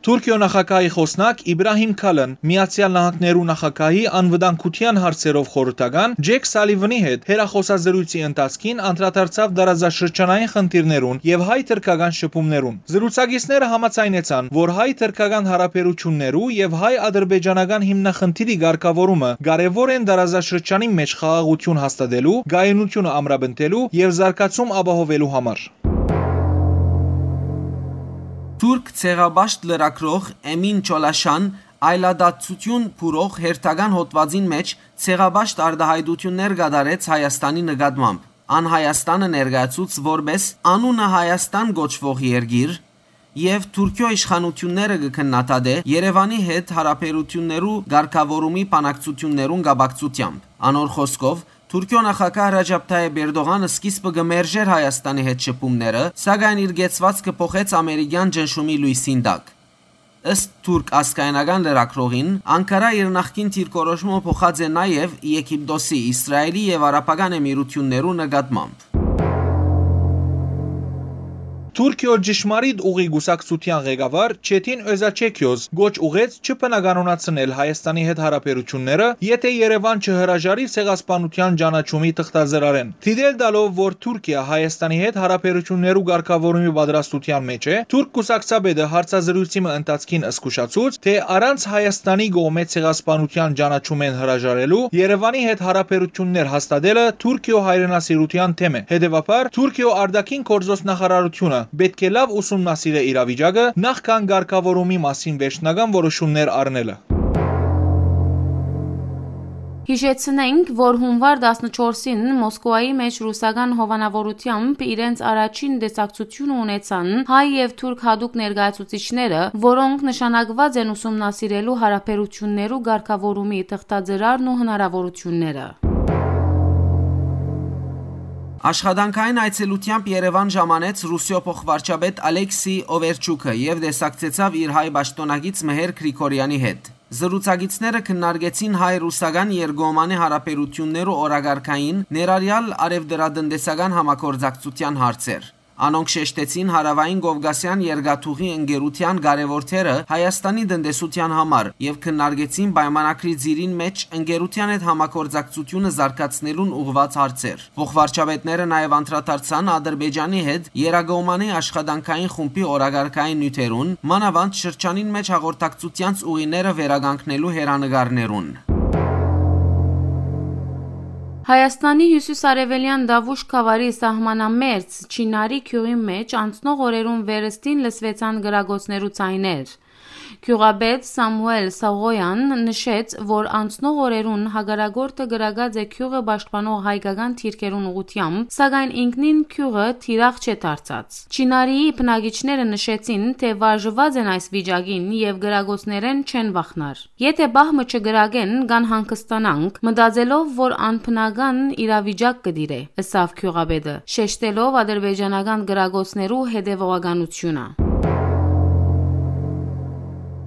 Թուրքիոյ նախագահի խօսնակ Իբրահիմ Քալն Միացեալ Նահանգներու նախագահի անվտանգութեան հարցերով խորհրդական Ջեք Սալիվանի հետ հեռախօսազրույցի ընթացքին անդրադարձաւ տարածաշրջանային խնդիրներուն եւ հայ-թրքական շփումներուն։ Զրուցակիցները համաձայնեցան, որ հայ-թրքական յարաբերութիւններու եւ հայ-ադրբեջանական հիմնախնդիրի կարգաւորումը կարեւոր են տարածաշրջանի մէջ խաղաղութիւն հաստատելու, կայունութիւնը ամրապնդելու եւ զարգացում ապահովելու համար։ Թուրք ցեղապաշտ լրագրող Էմին Չոլաշան այլադատչութիւն բուրող հերթական հոդուածին մէջ ցեղապաշտ արտայայտութիւններ կատարեց Հայաստանի նկատմամբ։ Ան Հայաստանը ներկայացուց որպէս անունը Հայաստան կոչուող երկիր եւ Թուրքիոյ իշխանութիւնները կը քննադատէ Երեւանի հետ յարաբերութիւններու կարգաւորումի բանակցութիւններուն կապակցութեամբ։ Անոր խօսքով, Թուրքիոյ նախագահ Ռաջապ Թայեփ Էրտողանը սկիզբը կը մերժէր Հայաստանի հետ շփումները, սակայն իր կեցուածքը փոխեց ամերիկեան ճնշումի լոյսին տակ։ Ըստ թուրք ազգայնական լրագրողին, Անկարա իր նախկին դիրքորոշումը փոխած է նաեւ Եգիպտոսի, Իսրայելի եւ Արաբական Էմիրութիւններու նկատմամբ։ Թուրքիոյ ճշմարիտ ուղի կուսակցութեան ղեկավար Չեթին Օզաչեքիոզ կոչ ուղղեց չբնականոնացնել Հայաստանի հետ յարաբերութիւնները, եթէ Երեւան չհրաժարի Ցեղասպանութեան ճանաչումի թղթածրարէն։ Դիտել տալով, որ Թուրքիա Հայաստանի հետ յարաբերութիւններու կարգաւորումի պատրաստութեան մէջ է, թուրք կուսակցապետը հարցազրոյցի մը ընթացքին զգուշացուց, թէ առանց Հայաստանի կողմէ Ցեղասպանութեան ճանաչումէն հրաժարելու Երեւանի հետ յարաբերութիւններ հաստատելը Թուրքիոյ հայրենասիրութեան դէմ է։ Հետեւաբար, Թուրքիոյ արտաքին գործոց նախարարութիւնը պէտք է լաւ ուսումնասիրէ իրավիճակը, նախքան կարգաւորումի մասին վերջնական որոշումներ առնելը։ Յիշեցնենք, որ հունուար տասնչորսին Մոսկուայի մէջ ռուսական հովանաւորութեամբ իրենց առաջին տեսակցությունը ունեցան հայ եւ թուրք յատուկ ներկայացուցիչները, որոնք նշանակուած են ուսումնասիրելու յարաբերութիւններու կարգաւորումի թղթածրարն ու հնարաւորութիւնները։ Աշխատանքային այցելութեամբ Երեւան ժամանեց Ռուսիոյ փոխվարչապետ Ալեքսի Օվերչուքը եւ տեսակցեցաւ իր հայ պաշտօնակից Մհեր Գրիգորյանի հետ։ Զրուցակիցները քննարկեցին հայ-ռուսական երկկողմանի հարաբերութիւններու օրակարգային, ներառյալ առեւտրատնտեսական համագործակցութեան հարցեր։ Անոնք շեշտեցին Հարաւային Կովկասեան երկաթուղի ընկերութեան կարեւոր դերը Հայաստանի տնտեսութեան համար եւ քննարկեցին պայմանագրի ծիրին մէջ ընկերութեան հետ համագործակցությունը զարգացնելուն ուղղուած հարցեր։ Փոխվարչապետները նաեւ անդրադարձան Ադրբեջանի հետ երկկողմանի աշխատանքային խումբի օրակարգային նիւթերուն, մանաւանդ շրջանին մէջ հաղորդակցութեանց ուղիները վերականգնելու հեռանկարներուն։ Հայաստանի հիւսիսարեւելեան Դաւուշ գաւառի սահմանամերձ Չինարի գիւղի մէջ անցնող օրերուն վերստին լսուեցան կրակոցներու ձայներ։ Գիւղապետ Սամուէլ Սաղոյան նշեց, որ անցնող օրերուն հակառակորդը կրակած է գիւղը պաշտպանող հայկական դիրքերուն ուղղութեամբ, սակայն ինքնին գիւղը թիրախ չէ դարձած։ Չինարիի բնակիչները նշեցին, թէ վարժուած են այս վիճակին եւ կրակոցներէն չեն վախնար։ Եթէ պահ մը չկրակեն, կ'անհանգստանանք, մտածելով, որ անբնական իրավիճակ կը տիրէ, ըսաւ գիւղապետը, շեշտելով ադրբեջանական կրակոցներու հետեւողականությունը։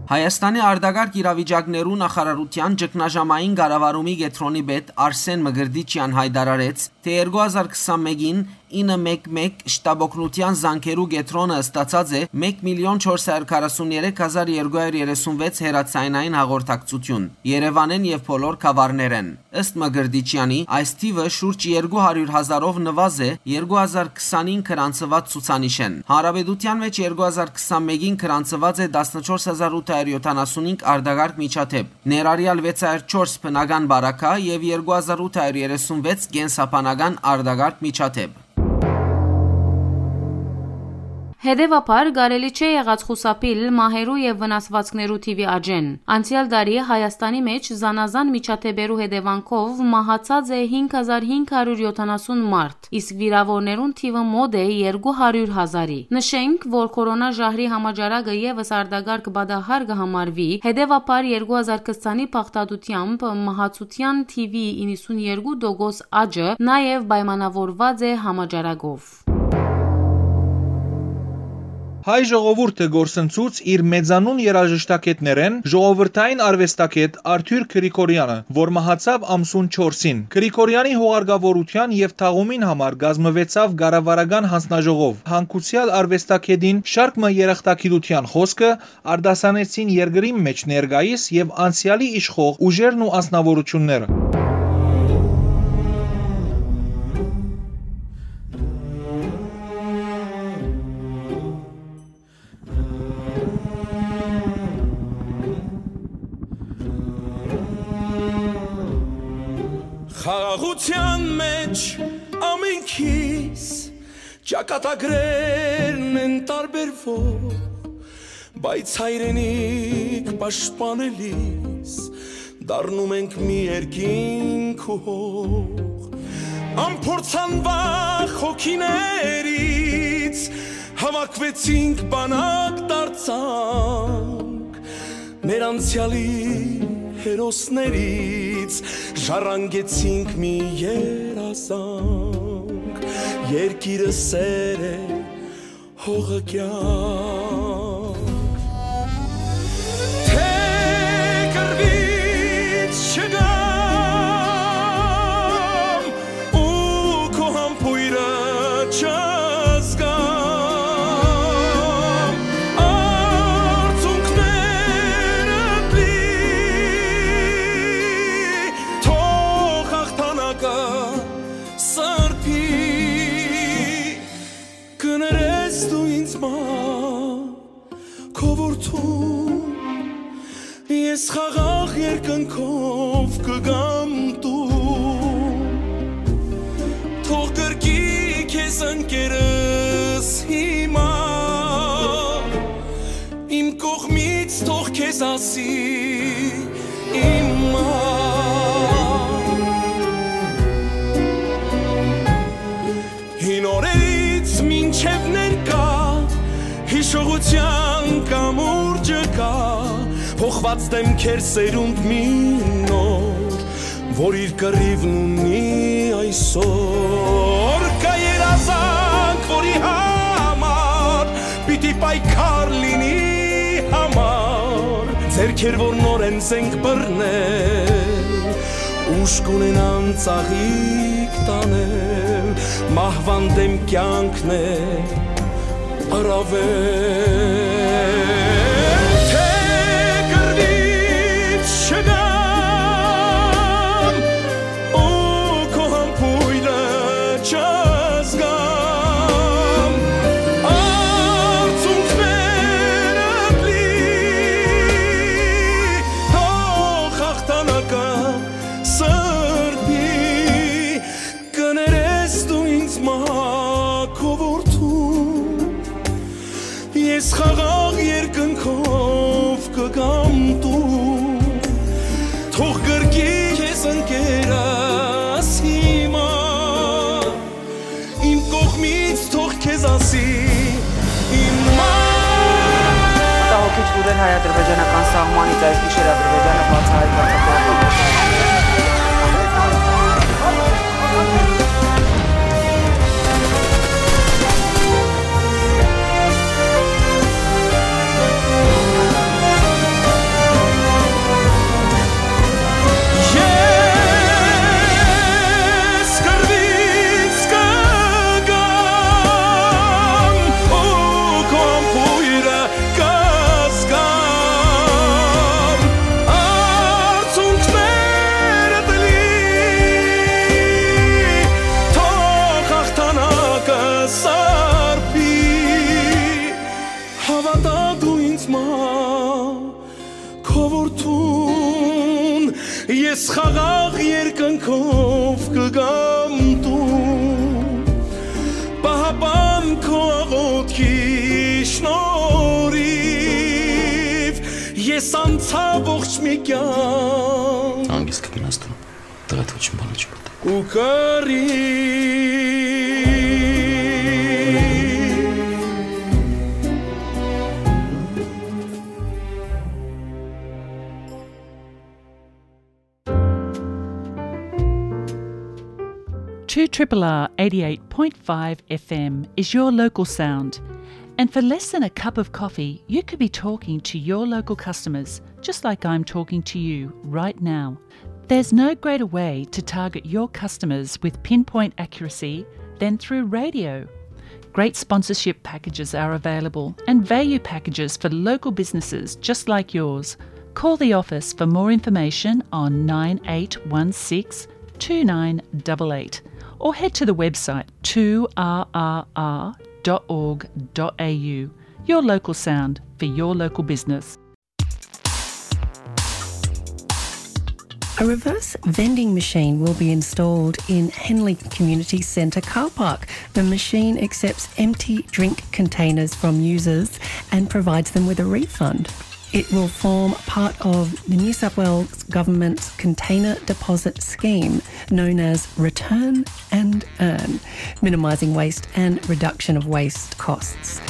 Հայաստանի արտակարգ իրավիճակներու նախարարութեան ճգնաժամային կառավարումի կեդրոնի պետ Արսեն Մկրտիչեան յայտարարեց, թէ երկու հազար քսանմէկին ինը մեկ մեկ շտապօգնութեան զանգերու կեդրոնը ստացած է մէկ միլիոն չորս հարյուր քառասուն երեք հազար երկու հարյուր երեսուն վեց հեռաձայնային հաղորդակցութիւն Երեւանէն եւ բոլոր գաւառներէն։ Ըստ Մկրտիչեանի, այս թիվը շուրջ երկու հարիւր հազարով նուազ է երկու հազար քսանին գրանցուած ցուցանիշէն։ Հանրապետութեան մէջ երկու հազար քսանմէկին գրանցուած է տասնչորս հազար ութ հարիւր յոթանասունհինգ արտակարգ միջադէպ, ներառյալ վեց հարիւր չորս բնական պարագա եւ երկու հազար ութ հարիւր երեսուն վեց կենսաբանական արտակարգ միջադէպ։ Հետեւաբար, կարելի չէ եղած խուսափիլ մահերու եւ վնասուածքներու թիւի աճէն։ Անցեալ տարի Հայաստանի մէջ զանազան միջադէպերու հետեւանքով մահացած է հինգ հազար հինգ հարիւր յոթանասուն մարդ, իսկ վիրաւորներուն թիվը մօտ է երկու հարիւր հազարի։ Նշենք, որ քորոնա ժահրի համաճարակը եւս արտակարգ պատահար կը համարուի, հետեւաբար երկու հազար քսանի բաղդատութեամբ մահացութեան թիւի իննսուն երկու տոկոս աճը նաեւ պայմանաւորուած է համաճարակով։ Հայ ժողովուրդը կորսնցուց իր մեծանուն երաժշտագէտներէն ժողովրդային արուեստագէտ Արթուր Գրիգորյանը, որ մահացաւ ամսուն չորսին։ Գրիգորյանի հուղարկավորութեան եւ թաղումին համար կազմուեցաւ կառավարական յանձնաժողով։ Յանգուցեալ արուեստագէտին շարք մը երախտագիտութեան խօսքը արտասանեցին երկրին մէջ ներկայիս եւ անցեալի իշխող ուժերն ու անձնաւորութիւնները։ Խաղաղութեան մէջ ամենքիս ճակատագրերն են տարբերվող, բայց հայրենիք պաշտպանելիս դառնում ենք մի երկինք ու հող։ Անփորձանվախ հոգիներից հավաքվեցինք, բանակ դարձանք, մեր անցեալի հերոսներից ժառանգեցինք մի երազանք։ Երկիրը սեր է, հողը կյանք։ Թե կռվից չգամ ու քո համբոյրը չզգամ, Խաղաղ երկնքով կգամ տուն, թող կրկի քեզ ընկերս հիմա, իմ կողմից թող քեզ ասի իմ մայր։ Հին օրերից մինչև ներկայ, հիշողութեան կամուրջը կայ, փոխուած դէմքեր սերունդ մի նոր, որ իր կռիւն ունի այսօր։ Կայ երազանք, որի համար պիտի պայքար լինի համար, ձեռքեր, որ նորէն զենք բռնել, ուժ կունենան ծաղիկ տանել, մահուան դէմ կեանքն է առավել, թէ կռիւից չգամ ու քո համբոյրը չզգամ, արցունքներդ լի, թող հաղթանակը սրբի, կներես դու ինձ մայր քո որդուն, ես խաղաղ երկնքով կգամ տուն, թող կրկի քեզ ընկերս հիմա, իմ կողմից թող քեզ ասի իմ մայր։ Մտահոգիչ լուրեր հայ-ադրբեջանական սահմանից։ Այս գիշեր Ադրբեջանը բացահայտուց Ես կռիւից կգամ ու քո համբոյրը կզգամ, արցունքներդ լի, թող հաղթանակը սրբի, հաւատա դու ինձ մայր քո որդուն, ես խաղաղ երկնքով կգամ տուն, պահապան քո աղօթքի շնորհիվ, ես անցայ ողջ մի կեանք։ Հանգիստ կգնաս տուն, տղա, ոչինչ բան չկա։ Ու կռի։ Two triple R eighty-eight point five F M is your local sound. And for less than a cup of coffee, you could be talking to your local customers, just like I'm talking to you right now. There's no greater way to target your customers with pinpoint accuracy than through radio. Great sponsorship packages are available and value packages for local businesses just like yours. Call the office for more information on nine eight one six two nine double eight or head to the website two R R R dot org dot A U. Your local sound for your local business. A reverse vending machine will be installed in Henley Community Centre car park. The machine accepts empty drink containers from users and provides them with a refund. It will form part of the New South Wales Government's container deposit scheme, known as Return and Earn, minimising waste and reduction of waste costs.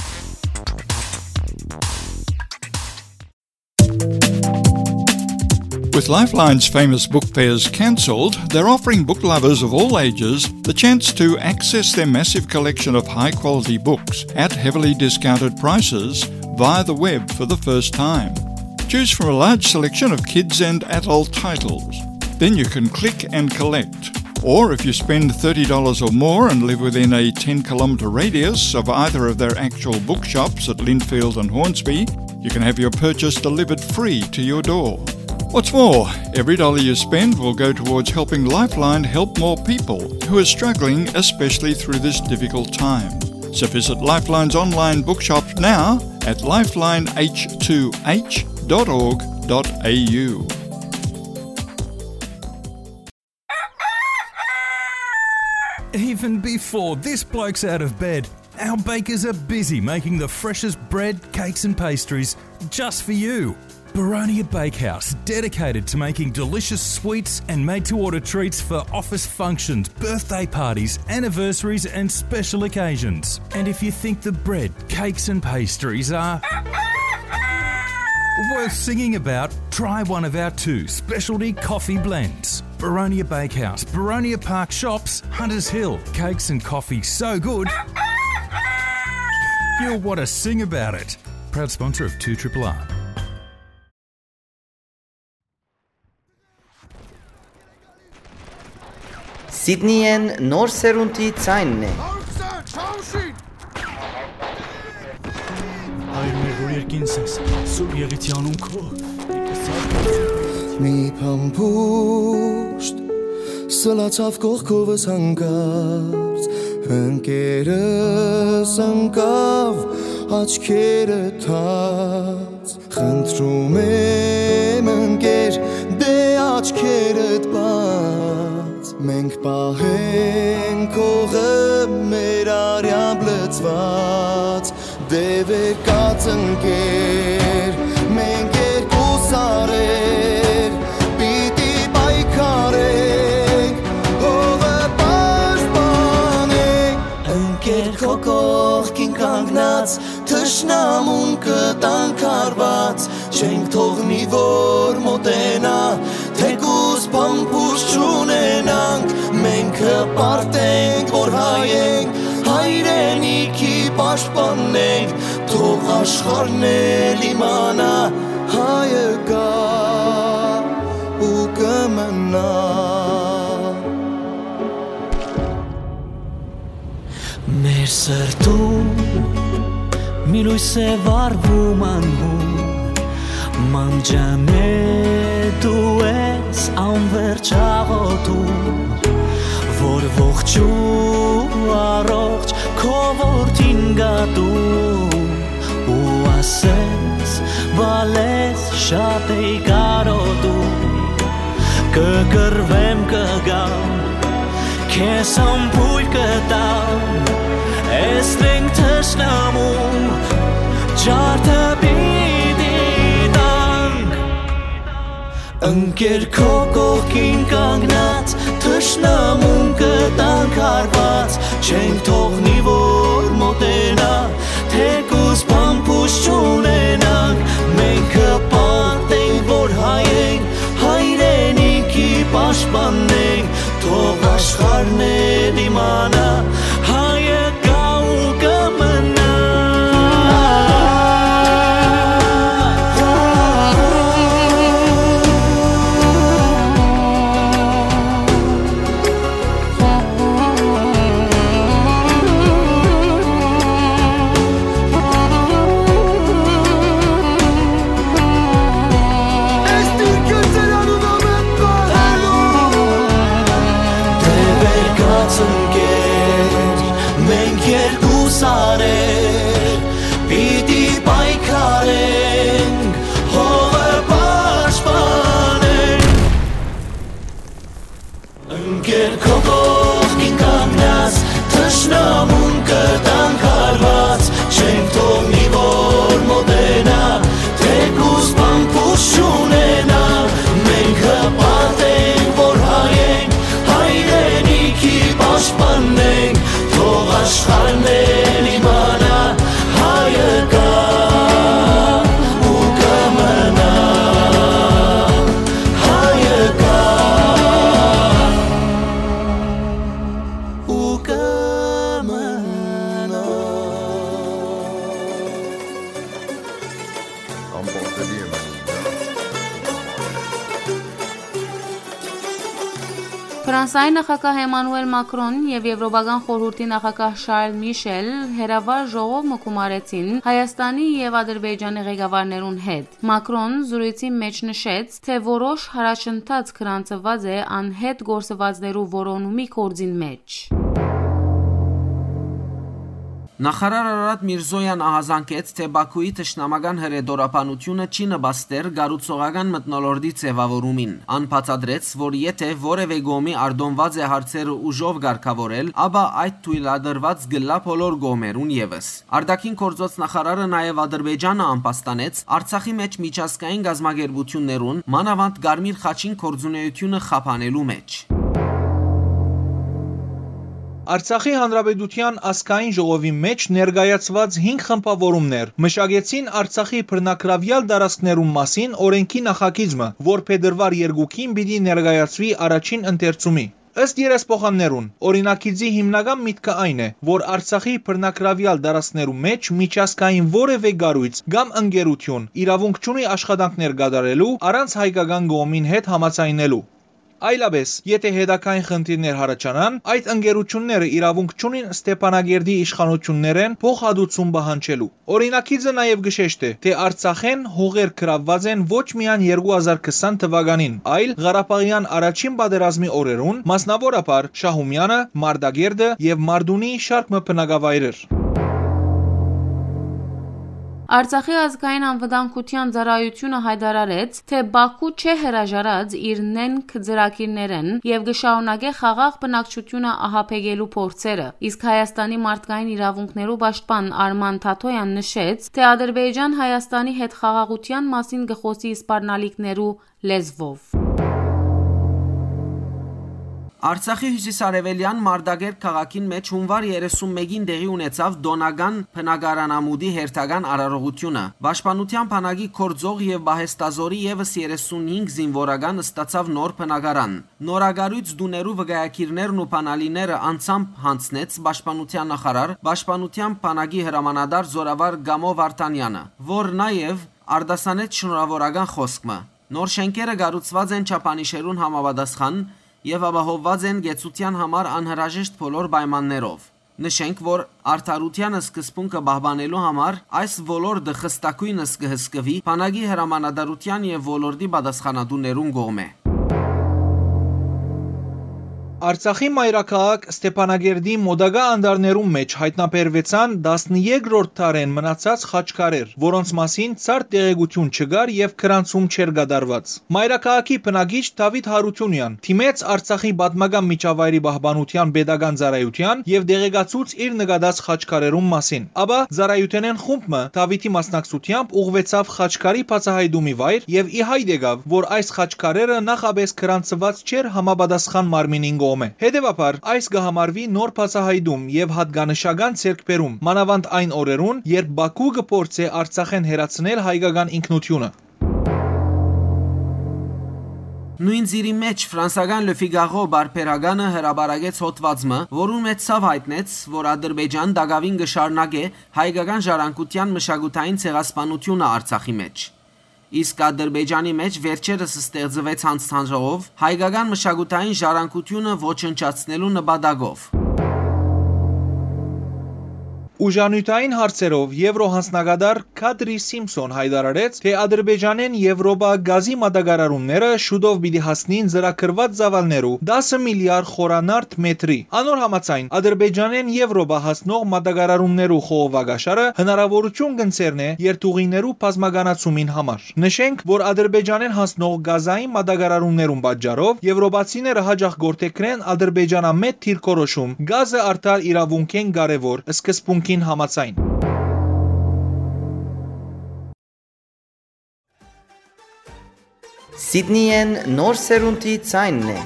With Lifeline's famous book fairs cancelled, they're offering book lovers of all ages the chance to access their massive collection of high-quality books at heavily discounted prices via the web for the first time. Choose from a large selection of kids and adult titles. Then you can click and collect. Or if you spend thirty dollars or more and live within a ten kilometre radius of either of their actual bookshops at Lindfield and Hornsby, you can have your purchase delivered free to your door. What's more, every dollar you spend will go towards helping Lifeline help more people who are struggling, especially through this difficult time. So visit Lifeline's online bookshop now at lifeline h two h dot org dot A U. Even before this bloke's out of bed, our bakers are busy making the freshest bread, cakes, and pastries just for you. Baronia Bakehouse, dedicated to making delicious sweets and made to order treats for office functions, birthday parties, anniversaries, and special occasions. And if you think the bread, cakes, and pastries are worth singing about, try one of our two specialty coffee blends. Baronia Bakehouse, Baronia Park Shops, Hunters Hill. Cakes and coffee so good, you'll want to sing about it. Proud sponsor of two triple R. Սիդնիեն նոր սերունդի ձայնն է։ Հայր մեր, որ երկինս ես, Սուրբ Եղիցի անուն քո։ Մի փամփուշտ սլացավ կողքովս հանկարծ, ընկերս ընկավ աչքերը թած։ Խնդրում եմ, ընկեր, դե աչքերդ բաց, մենք պահենք հողը մեր արյամբ լցված, դե վեր կաց, ընկեր, մենք երկու սարեր պիտի պայքարենք, հողը պաշտպանենք, ընկեր, քո կողքին կանգնած, թշնամուն կտանք հարված, չենք թողնի, որ մոտենայ, թեկուզ փամփուշտ չունենանք, մենք կպարտենք, որ հայ ենք, հայրենիքի պաշտպանենք, թող աշխարհն էլ իմանայ, հայը կայ ու կը մնայ։ Մեր սրտում մի լոյս է վառվում անհուն, մանջանե դու ես անվերջ աղոթում, որ ողջ ու առողջ քո որդին գատում, ու ասես, բալես շատ էի կարոտում, կը կռվեմ, կը գամ, քեզ համբույր կտամ, էս մենք թշնամու ջարդը պիտի տանք։ Ընկեր, քո կողքին կանգնած, թշնամուն կտանք հարված, չենք թողնի, որ մոտենայ, թեկուզ փամփուշտ չունենանք, մենք կպարտենք, որ հայ ենք, հայրենիքի պաշտպանենք, թող աշխարհն է դիմանա, հայը կայ ու կը մնայ։ Դե վեր կաց, ընկեր, մենք երկու սարեր պիտի պայքարենք, հողը պաշտպանենք։ Ընկեր, քո կողքին կանգնած, թշնամուն կտանք հարված, չենք թողնի, որ մոտենայ, թեկուզ փամփուշտ չունենայ, մենք կպարտենք, որ հայ ենք, հայրենիքի պաշտպանենք, թող աշխարհն էլ իմանայ, հայը կայ ու կը մնայ, հայը կայ ու կը մնայ։ Ամբողջելի եմ անում դա։ Ֆրանսայի նախագահ Էմանուել Մակրոն եւ Եվրոպական խորհուրդի նախագահ Շարլ Միշել հերավար ժողով մը գումարեցին Հայաստանի եւ Ադրբեջանի ղեկավարներուն հետ։ Մակրոն զրույցի մէջ նշեց, թէ որոշ յառաջընթաց գրանցուած է անհետ գործուածներու որոնումի գործին մէջ։ Նախարար Արարատ Միրզոյան ահազանգեց, թէ Բաքուի թշնամական հրետորաբանութիւնը չի նպաստեր կառուցողական մթնոլորտի ձեւաւորումին։ Ան բացատրեց, որ եթէ որեւէ կողմի արտոնուած է հարցերը ուժով կարգաւորել, ապա այդ թոյլատրուած կ'ըլլայ բոլոր կողմերուն եւս։ Արտաքին գործոց նախարարը նաեւ Ադրբեջանը ամբաստանեց Արցախի մէջ միջազգային կազմակերպութիւններուն, մանաւանդ Կարմիր խաչին գործունէութիւնը խափանելու մէջ։ Արցախի Հանրապետութեան ազգային ժողովի մէջ ներկայացուած հինգ խմբաւորումներ մշակեցին Արցախի բռնագրաւեալ տարածքներուն մասին օրէնքի նախագիծ մը, որ փետրուար երկուին պիտի ներկայացուի առաջին ընթերցումի։ Ըստ երեսփոխաններուն, օրինագիծի հիմնական միտքը այն է, որ Արցախի բռնագրաւեալ տարածքներու մէջ միջազգային որեւէ կառոյց կամ ընկերութիւն իրաւունք չունի աշխատանքներ կատարելու առանց հայկական կողմին հետ համաձայնելու։ Այլապէս, եթէ հետագային խնդիրներ յառաջանան, այդ ընկերութիւնները իրաւունք չունին Ստեփանակերտի իշխանութիւններէն փոխհատուցում պահանջելու։ Օրինագիծը նաեւ կը շեշտէ, թէ Արցախէն հողեր գրաւուած են ոչ միայն երկու հազար քսան թուականին, այլ Ղարաբաղեան առաջին պատերազմի օրերուն, մասնաւորաբար Շահումեանը, Մարտակերտը եւ Մարտունիի շարք մը բնակավայրեր։ Արցախի ազգային անվտանգութեան ծառայութիւնը յայտարարեց, թէ Բաքու չէ հրաժարած իր նենգ ծրագիրներէն եւ կը շարունակէ խաղաղ բնակչութիւնը ահաբեկելու փորձերը, իսկ Հայաստանի մարդկային իրաւունքներու պաշտպան Արման Թաթոյան նշեց, թէ Ադրբեջան Հայաստանի հետ խաղաղութեան մասին կը խօսի սպառնալիքներու լեզուով։ Արցախի հիւսիսարեւելեան Մարտակերտ քաղաքին մէջ հունուար երեսուն մէկին տեղի ունեցաւ տօնական բնակարանամուտի հերթական արարողութիւնը։ Պաշտպանութեան բանակի գործող եւ պահեստազօրի եւս երեսունհինգ զինուորական ստացաւ նոր բնակարան։ Նորակառոյց տուներու վկայագիրներն ու բանալիները անձամբ յանձնեց պաշտպանութեան նախարար, պաշտպանութեան բանակի հրամանատար զօրավար Կամո Վարդանեանը, որ նաեւ արտասանեց շնորհաւորական խօսք մը։ Նոր շէնքերը կառուցուած են չափանիշերուն համապատասխան եւ ապահովուած են կեցութեան համար անհրաժեշտ բոլոր պայմաններով։ Նշենք, որ արդարութեան սկզբունքը պահպանելու համար այս ոլորտը խստագոյնս կը հսկուի բանակի հրամանատարութեան եւ ոլորտի պատասխանատուներուն կողմէ։ Արցախի մայրաքաղաք Ստեփանագերդի մօտակայ անտառներուն մէջ յայտնաբերուեցան տասներկրորդ դարէն մնացած խաչքարեր, որոնց մասին ցարդ տեղեկութիւն չկար եւ գրանցում չէր կատարուած։ Մայրաքաղաքի բնակիչ Դաւիթ Յարութիւնեան դիմեց Արցախի պատմական միջավայրի պահպանութեան պետական ծառայութեան եւ տեղեկացուց իր նկատած խաչքարերուն մասին։ Ապա ծառայութենէն խումբ մը Դաւիթի մասնակցությամբ ուղղուեցաւ խաչքարի բացահայտումի վայր եւ ի հայտ եկաւ, որ այս խաչքարերը նախապէս գրանցուած չէր համապատասխան մարմինին կողմէ։ Հետեւաբար, այս կը համարուի նոր բացահայտում եւ յատկանշական ձեռքբերում, մանաւանդ այն օրերուն, երբ Բաքու կը փորձէ Արցախէն հեռացնել հայկական ինքնութիւնը։ Նոյն ծիրի մէջ ֆրանսական Le Figaro պարբերականը հրապարակեց հոդուած մը, որուն մէջ ցաւ յայտնեց, որ Ադրբեջան տակաւին կը շարունակէ հայկական ժառանգութեան մշակութային ցեղասպանութիւնը Արցախի մէջ։ Իսկ Ադրբեջանի մէջ վերջերս ստեղծուեց յանձնաժողով հայկական մշակութային ժառանգութիւնը ոչնչացնելու նպատակով։ Ուժանիւթային հարցերով Եվրոյանձնակատար Քադրի Սիմփսոն յայտարարեց, թէ Ադրբեջանէն Եվրոպա գազի մատակարարումները շուտով պիտի հասնին ծրագրուած ծաւալներու տասը միլիարդ խորանարդ մեթրի։ Անոր համաձայն, Ադրբեջանէն Եվրոպա հասնող մատակարարումներու խողովակաշարը հնարաւորութիւն կ'ընձեռնէ երթուղիներու բազմականացումին համար։ Նշենք, որ Ադրբեջանէն հասնող գազային մատակարարումներուն պատճառով եվրոպացիները յաճախ կ'որդեգրեն ադրբեջանամետ դիրքորոշում՝ գազը արդար իրաւունքէն կարեւոր սկզբունքին համաձայն։ Սիդնիեն նոր սերունդի ձայնն է։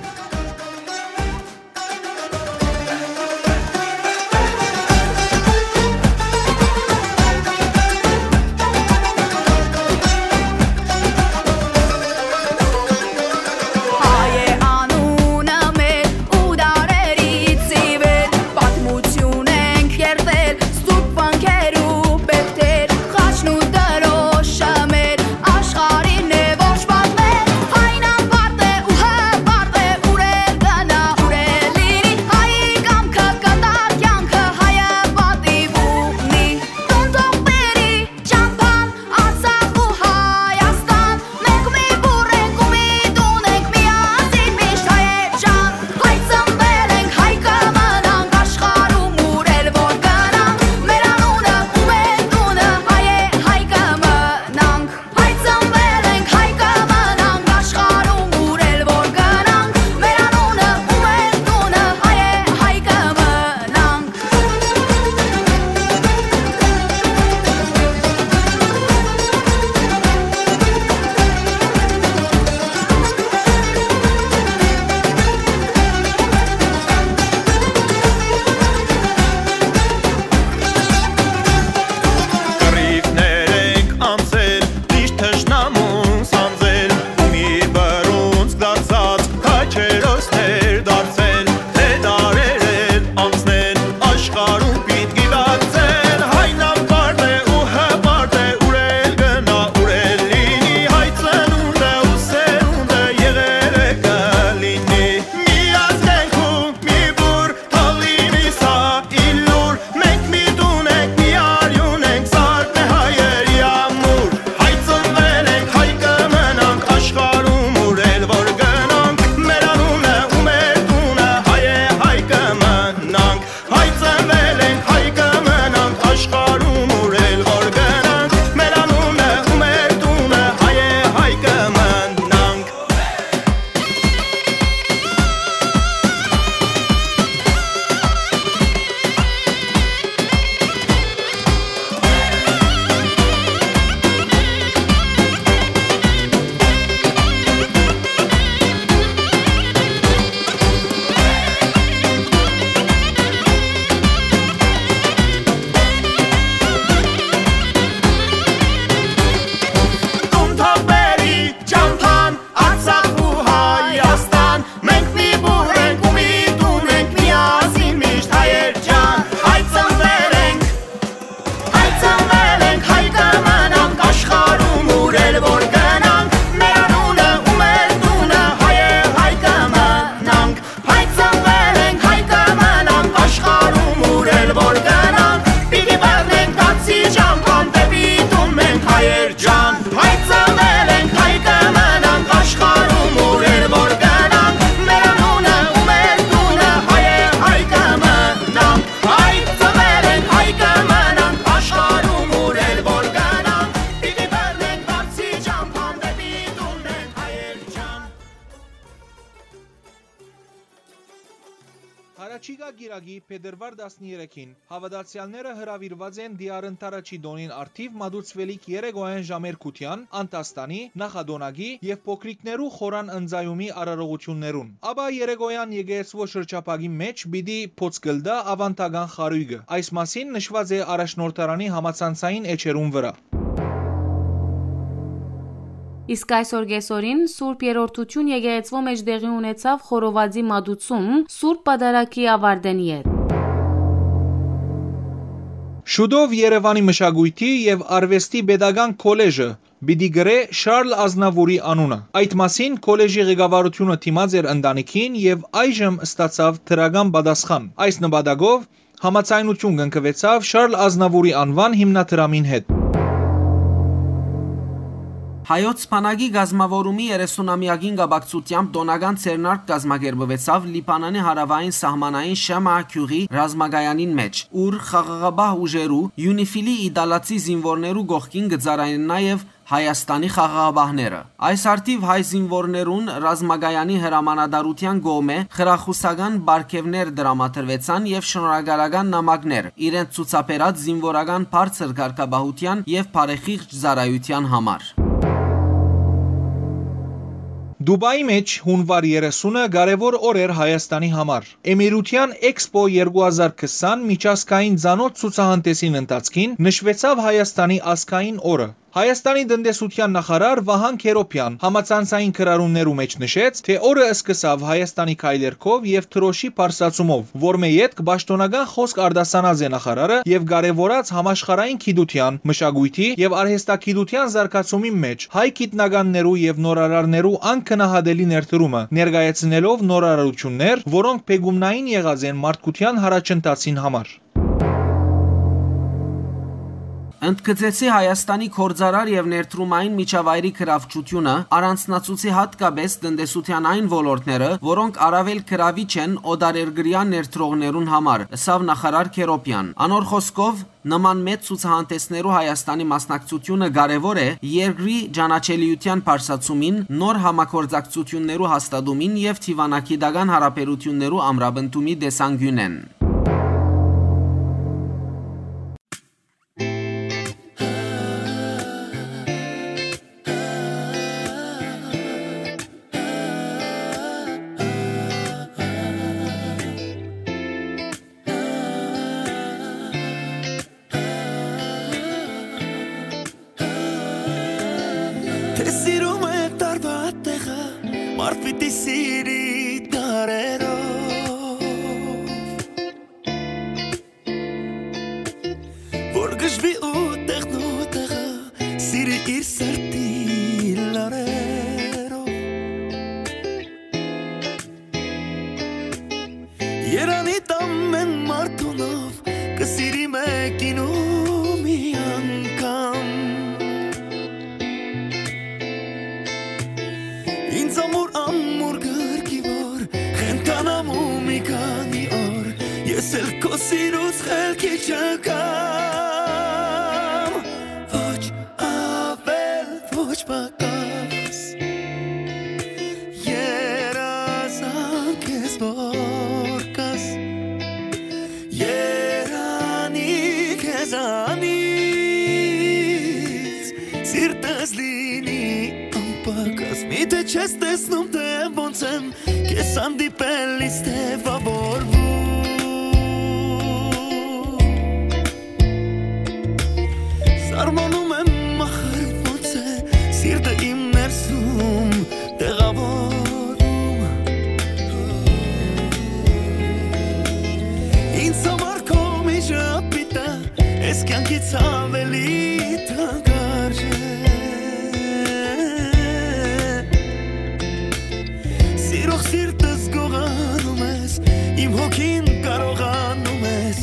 Հայ է անունը մեր ու դարերից ի վեր պատմություն ենք երթել, սուրբ վանքեր ու պերթեր, խաչն ու դրոշը մեր աշխարհին է ոչ պատմել, այն անպարտ է ու հպարտ է, ուր Կիրակի, փետրուար տասներեքին, հաւատացեալները հրաւիրուած են Դիարընթարաչի տօնին առթիւ մատուցուելիք երեկոյեան ժամեր Քութեան, Անդաստանի, Նախատոնագի եւ փոքրիկներու խորան ընծայումի արարողութիւններուն։ Ապա երեկոյեան եկեղեցւոյ շրջափակի մէջ պիտի փոց կլտայ աւանդական խարոյկը։ Այս մասին նշուած է առաջնորդարանի համացանցային էջերուն վրայ։ Իսկ այսօր կեսօրին Սուրբ Երրորդութիւն եկեղեցւոյ մէջ տեղի ունեցաւ խորովածի մատուցում Սուրբ Պատարագի աւարտէն ետք։ Շուտով Երեւանի մշակոյթի եւ արուեստի պետական քոլեժը պիտի կրէ Շարլ Ազնավուրի անունը։ Այդ մասին քոլեժի ղեկավարութիւնը դիմած էր ընտանիքին եւ այժմ ստացաւ դրական պատասխան։ Այս նպատակով համաձայնութիւն կնքուեցաւ Շարլ Ազնավուրի անուան հիմնադրամին հետ։ Հայոց բանակի կազմաւորումի երեսունամեակին կապակցութեամբ տօնական ձեռնարկ կազմակերպուեցաւ Լիբանանի հարաւային սահմանային Շեմա գիւղի ռազմակայանին մէջ, ուր խաղաղապահ ուժերու, ЮܢԻլֆի իտալացի զինուորներու կողքին կը ծառայեն նաեւ Հայաստանի խաղաղապահները։ Այս առթիւ հայ զինուորներուն ռազմակայանի հրամանատարութեան կողմէ խրախուսական պարգեւներ տրամադրուեցան եւ շնորհակալական նամակներ իրենց ցուցաբերած զինուորական բարձր կարգապահութեան եւ բարեխիղճ ծառայութեան համար։ Դուբայի մէջ հունուար երեսունը կարեւոր օր էր Հայաստանի համար։ Էմիրութեան Էքսպո երկու հազար քսան միջազգային ծանօթ ցուցահանդէսին ընթացքին նշուեցաւ Հայաստանի ազգային օրը։ Հայաստանի տնտեսութեան նախարար Վահան Քերոփեան համացանցային գրառումներու մէջ նշեց, թէ օրը սկսաւ Հայաստանի քայլերգով եւ դրօշի բարձրացումով, որմէ ետք պաշտօնական խօսք արտասանած է նախարարը եւ կարեւորած համաշխարհային գիտութեան, մշակոյթի եւ արհեստագիտութեան զարգացումին մէջ հայ գիտնականներու եւ նորարարներու անգնահատելի ներդրումը, ներկայացնելով նորարարութիւններ, որոնք բեկումնային եղած են մարդկութեան յառաջընթացին համար։ Ընդգծեցի Հայաստանի գործարար եւ ներդրումային միջավայրի գրավչութիւնը, առանձնացուցի յատկապէս տնտեսութեան այն ոլորտները, որոնք առավել գրավիչ են օտարերկրեայ ներդրողներուն համար, ըսաւ նախարար Քերոփեան։ Անոր խօսքով, նման մեծ ցուցահանդէսներու Հայաստանի մասնակցութիւնը կարեւոր է երկրի ճանաչելիութեան բարձրացումին, նոր համագործակցութիւններու հաստատումին եւ դիւանագիտական յարաբերութիւններու ամրապնդումի տեսանկիւնէն։ Թէ սիրում է տարուա տեղը, մարդ պիտի սիրի դարերով։ Որ գժվի ու տեղն ու տեղը, սիրի իր սրտի լարերով։ Երանի տամ են մարդունով, կը սիրի մեկին ու մի անգամ։ Ինձ ամուր, ամուր գրկի որ, խենթանամ ու մի քանի օր, ես էլ քո սիրուց խելքի չգամ։ Ոչ ավել, ոչ պակաս, երազանք ես որ կաս, երանի քեզանից, սիրտս լինի անպակաս, միթե չես տեսնում, թե ոնց եմ քեզ հանդիպելիս թեւավորվում։ Սարմանում եմ, ախր ոնց է սիրտը իմ ներսում տեղավորում։ Ինձ համար քո միշտ պիտա, ես կյանքից ավելի թանկարժե։ Սիրող սիրտս գողանում ես, իմ հոգին կարողանում ես,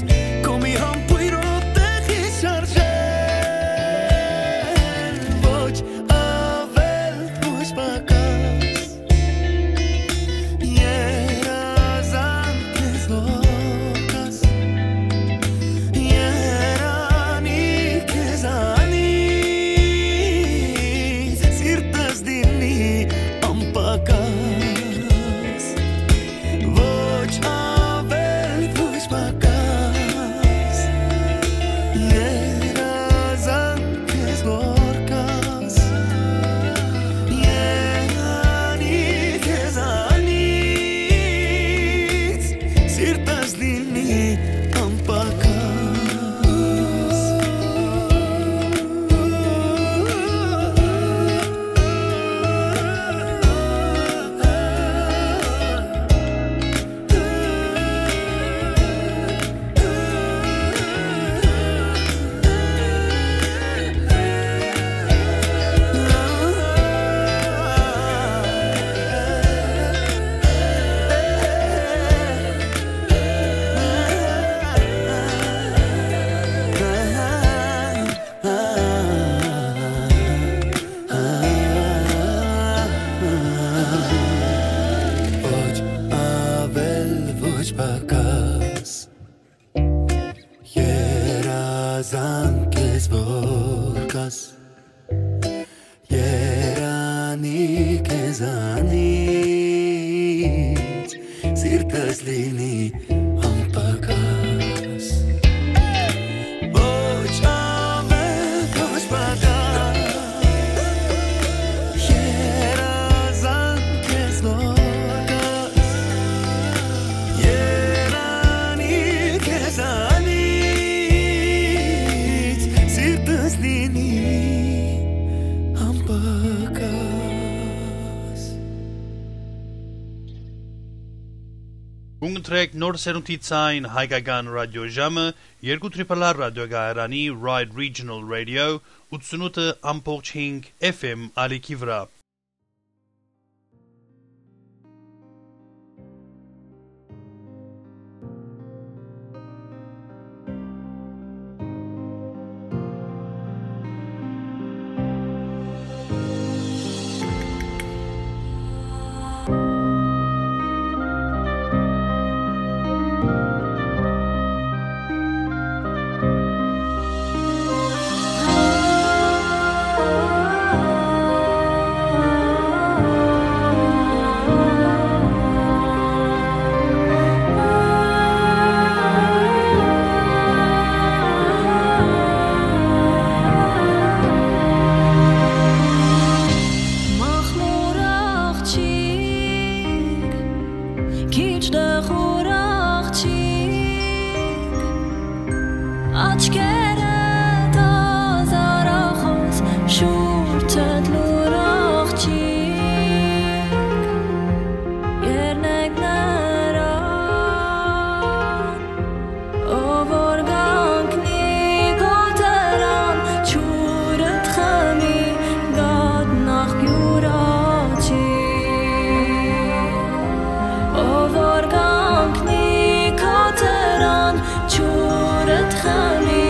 քո մի համբույրով տեղի շարժել, ոչ ավել, ոչ պակաս, երազանք ես որ կաս, երանի քեզանի Զանկ ես որ կաս, երանի քեզանից, սիրտս լինի անպակաս։ Ոչ ավել, ոչ պակաս, երազանք ես որ կաս, երանի քեզանից, սիրտս լինի անպակաս։ Կունկտրեք նոր սերունդի ցայն հայկական ռադիոժամը, երկու Triple R ռադիոկայարանի Ride Regional Radio, ութսունութ ամբողջ հինգ F M ալիքի վրայ։ Մախմուր աղջիկ, քիչ դեղուր աղջիկ, աչքերդ ազարախոս, շուրջդ լուր աղջիկ, երնեք նրան, ով որ կանգնի քո դրան, ջուրդ խմի կատնախ յուր աջի։ Ով որ կանգնի քո դրան, ջուրդ խմի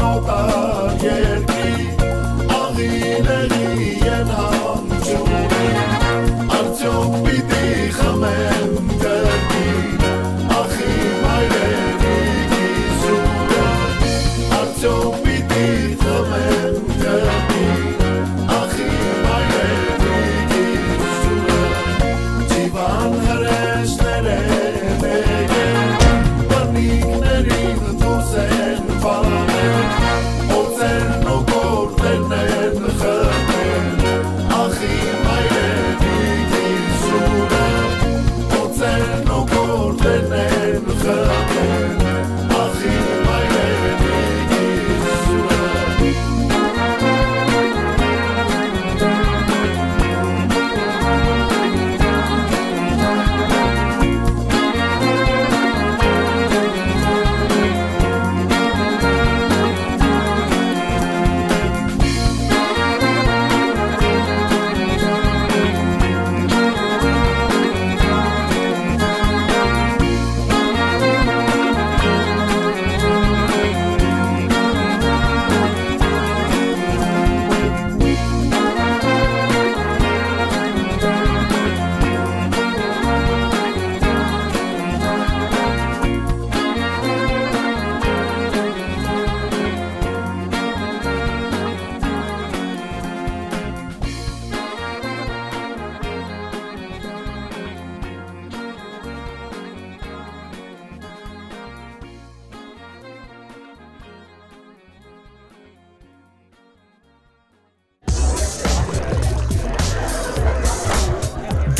օտար երկրի, աղի լեղի են հանջուրի, արդյոք պիտի խմեմ կրկին, ախի մայրենիքի սուրը, արդյոք պիտի խմեմ կրկին, ախի մայրենիքի սուրը, Չիվան հրեշներէ մեկը, բնիկներին դուրս են վարել, օծերն ու գորտերն են խմել, ախի մայրենիքի սուրը, օծերն ու գորտերն են խմել, ախի մայրենիքի սուրը։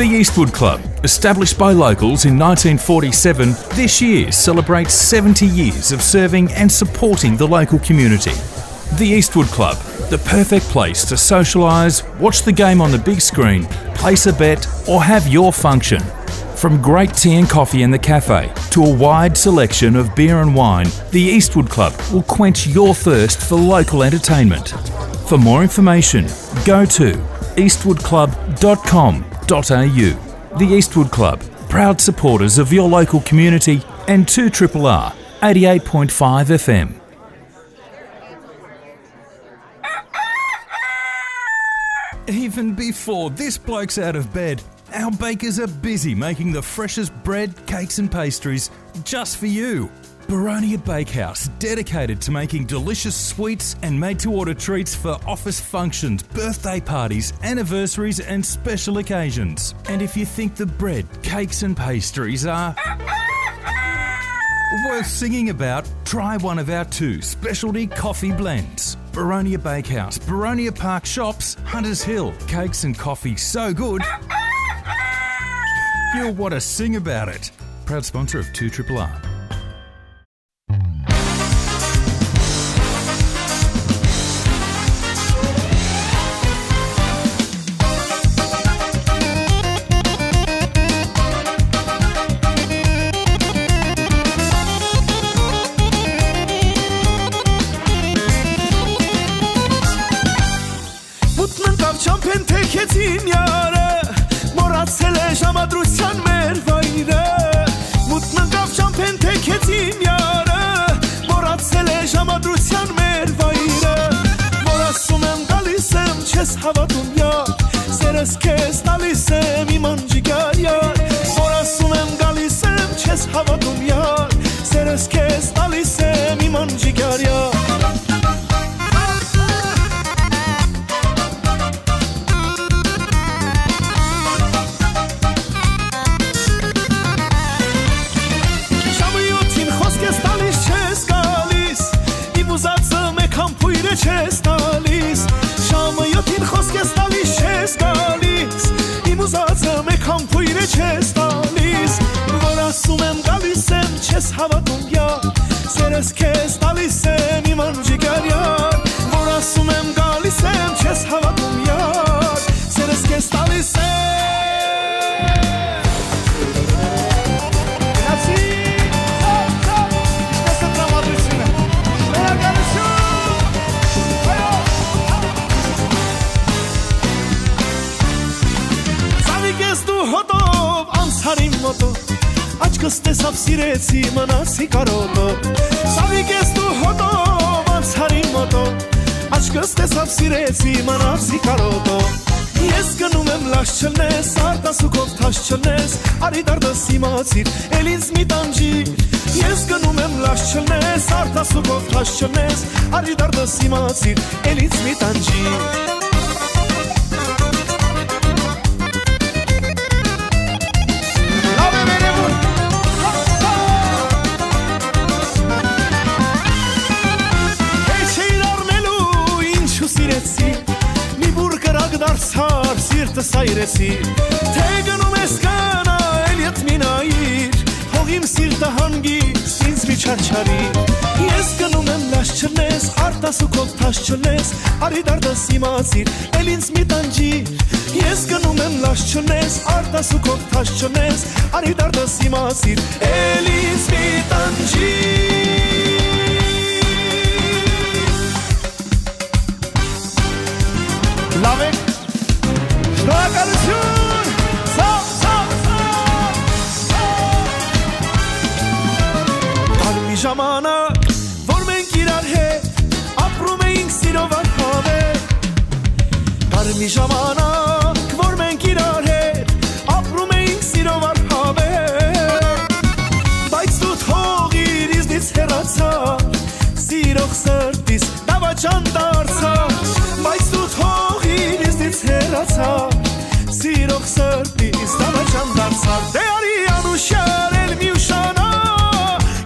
The Eastwood Club, established by locals in nineteen forty-seven, this year celebrates seventy years of serving and supporting the local community. The Eastwood Club, the perfect place to socialise, watch the game on the big screen, place a bet, or have your function. From great tea and coffee in the cafe to a wide selection of beer and wine, the Eastwood Club will quench your thirst for local entertainment. For more information, go to eastwood club dot com dot a u. The Eastwood Club, proud supporters of your local community and two triple R, eighty-eight point five F M. Even before this bloke's out of bed, our bakers are busy making the freshest bread, cakes and pastries just for you. Baronia Bakehouse, dedicated to making delicious sweets and made-to-order treats for office functions, birthday parties, anniversaries and special occasions. And if you think the bread, cakes and pastries are worth singing about, try one of our two specialty coffee blends. Baronia Bakehouse, Baronia Park Shops, Hunters Hill. Cakes and coffee so good, you'll want to sing about it. Proud sponsor of two triple R. Մութն ընկաւ չամբէն թեքեց իմ յարը, մոռացել է ժամադրութեան մեր վայրը։ Մութն ընկաւ չամբէն թեքեց իմ յարը, մոռացել է ժամադրութեան մեր վայրը։ Որ ասում եմ, գալիս եմ, չես հավատում, յար, սերս քեզ տալիս եմ, իմ անջիկար յար։ Որ ասում եմ, գալիս եմ, չես հավատում, յար, սերս քեզ տալիս եմ, իմ անջիկար յար։ Ժամը յոթին խոսք ես տալիս չես գալիս, իմ ուզածը մեկ համբույրը չես տալիս։ Ժամը յոթին խոսք ես տալիս չես գալիս, իմ ուզածը մեկ համբույրը չես տալիս։ Որ ասում եմ, գալիս եմ, չես հավատում, յա, սերս քեզ տալիս եմ, իմ անջիկար յար։ Որ ասում եմ, գալիս եմ, չես հավատում, յար, սերս քեզ տալիս եմ։ Գնացի, սա, սա, ինչպես է տրամադրությունը։ Վերակալություն։ Այո։ Սավիկ ես դու հոտով, անցար իմ մոտով, աչքս տեսավ, սիրեցի, մնացի կարոտով։ Սավիկ ես դու հոտով, անցար Կս տեսաւ սիրեցի, մնացի կարոտով։ Ես գնում եմ լաչ չլնես, արտասուքով թաշ չլնես, արի դարդս իմացիր, էլ ինձ մի տանջիր։ Ես գնում եմ լաչ չլնես, արտասուքով թաշ չլնես, արի դարդս իմացիր, էլ ինձ մի տանջիր։ Լաւ է, վերևում։ Հեչ էիր առնելու, ինչու սիրեցի, մի բուռ կրակ դարձար, սիրտս այրեցի, թե գնում ես, գնա, էլ ետ մի նայիր, թող իմ սիրտը հանգիստ ինձ մի չարչարի։ Ես գնում եմ լաչ չլնես, արտասուքով թաշ չլնես, արի դարդս իմացիր, էլ ինձ մի տանջիր։ Ես գնում եմ լաչ չլնես, արտասուքով թաշ չլնես, արի դարդս իմացիր, էլ ինձ մի տանջիր։ Լաւ է։ Շնորհակալություն։ Սա, սա, սա, սա։ Կար մի ժամանակ, որ մենք իրար հետ ապրում էինք սիրով անհավեր։ Կար մի ժամանակ, որ մենք իրար հետ ապրում էինք սիրով անհավեր։ Բայց դու թողիր, ինձնից հեռացար, սիրող սրտիս դավաճան դարձար, բայց դու թողիր, ինձնից հեռացար, սիրող սրտիս դավաճան դարձար։ Դե արի անուշար, էլ մի ուշանա,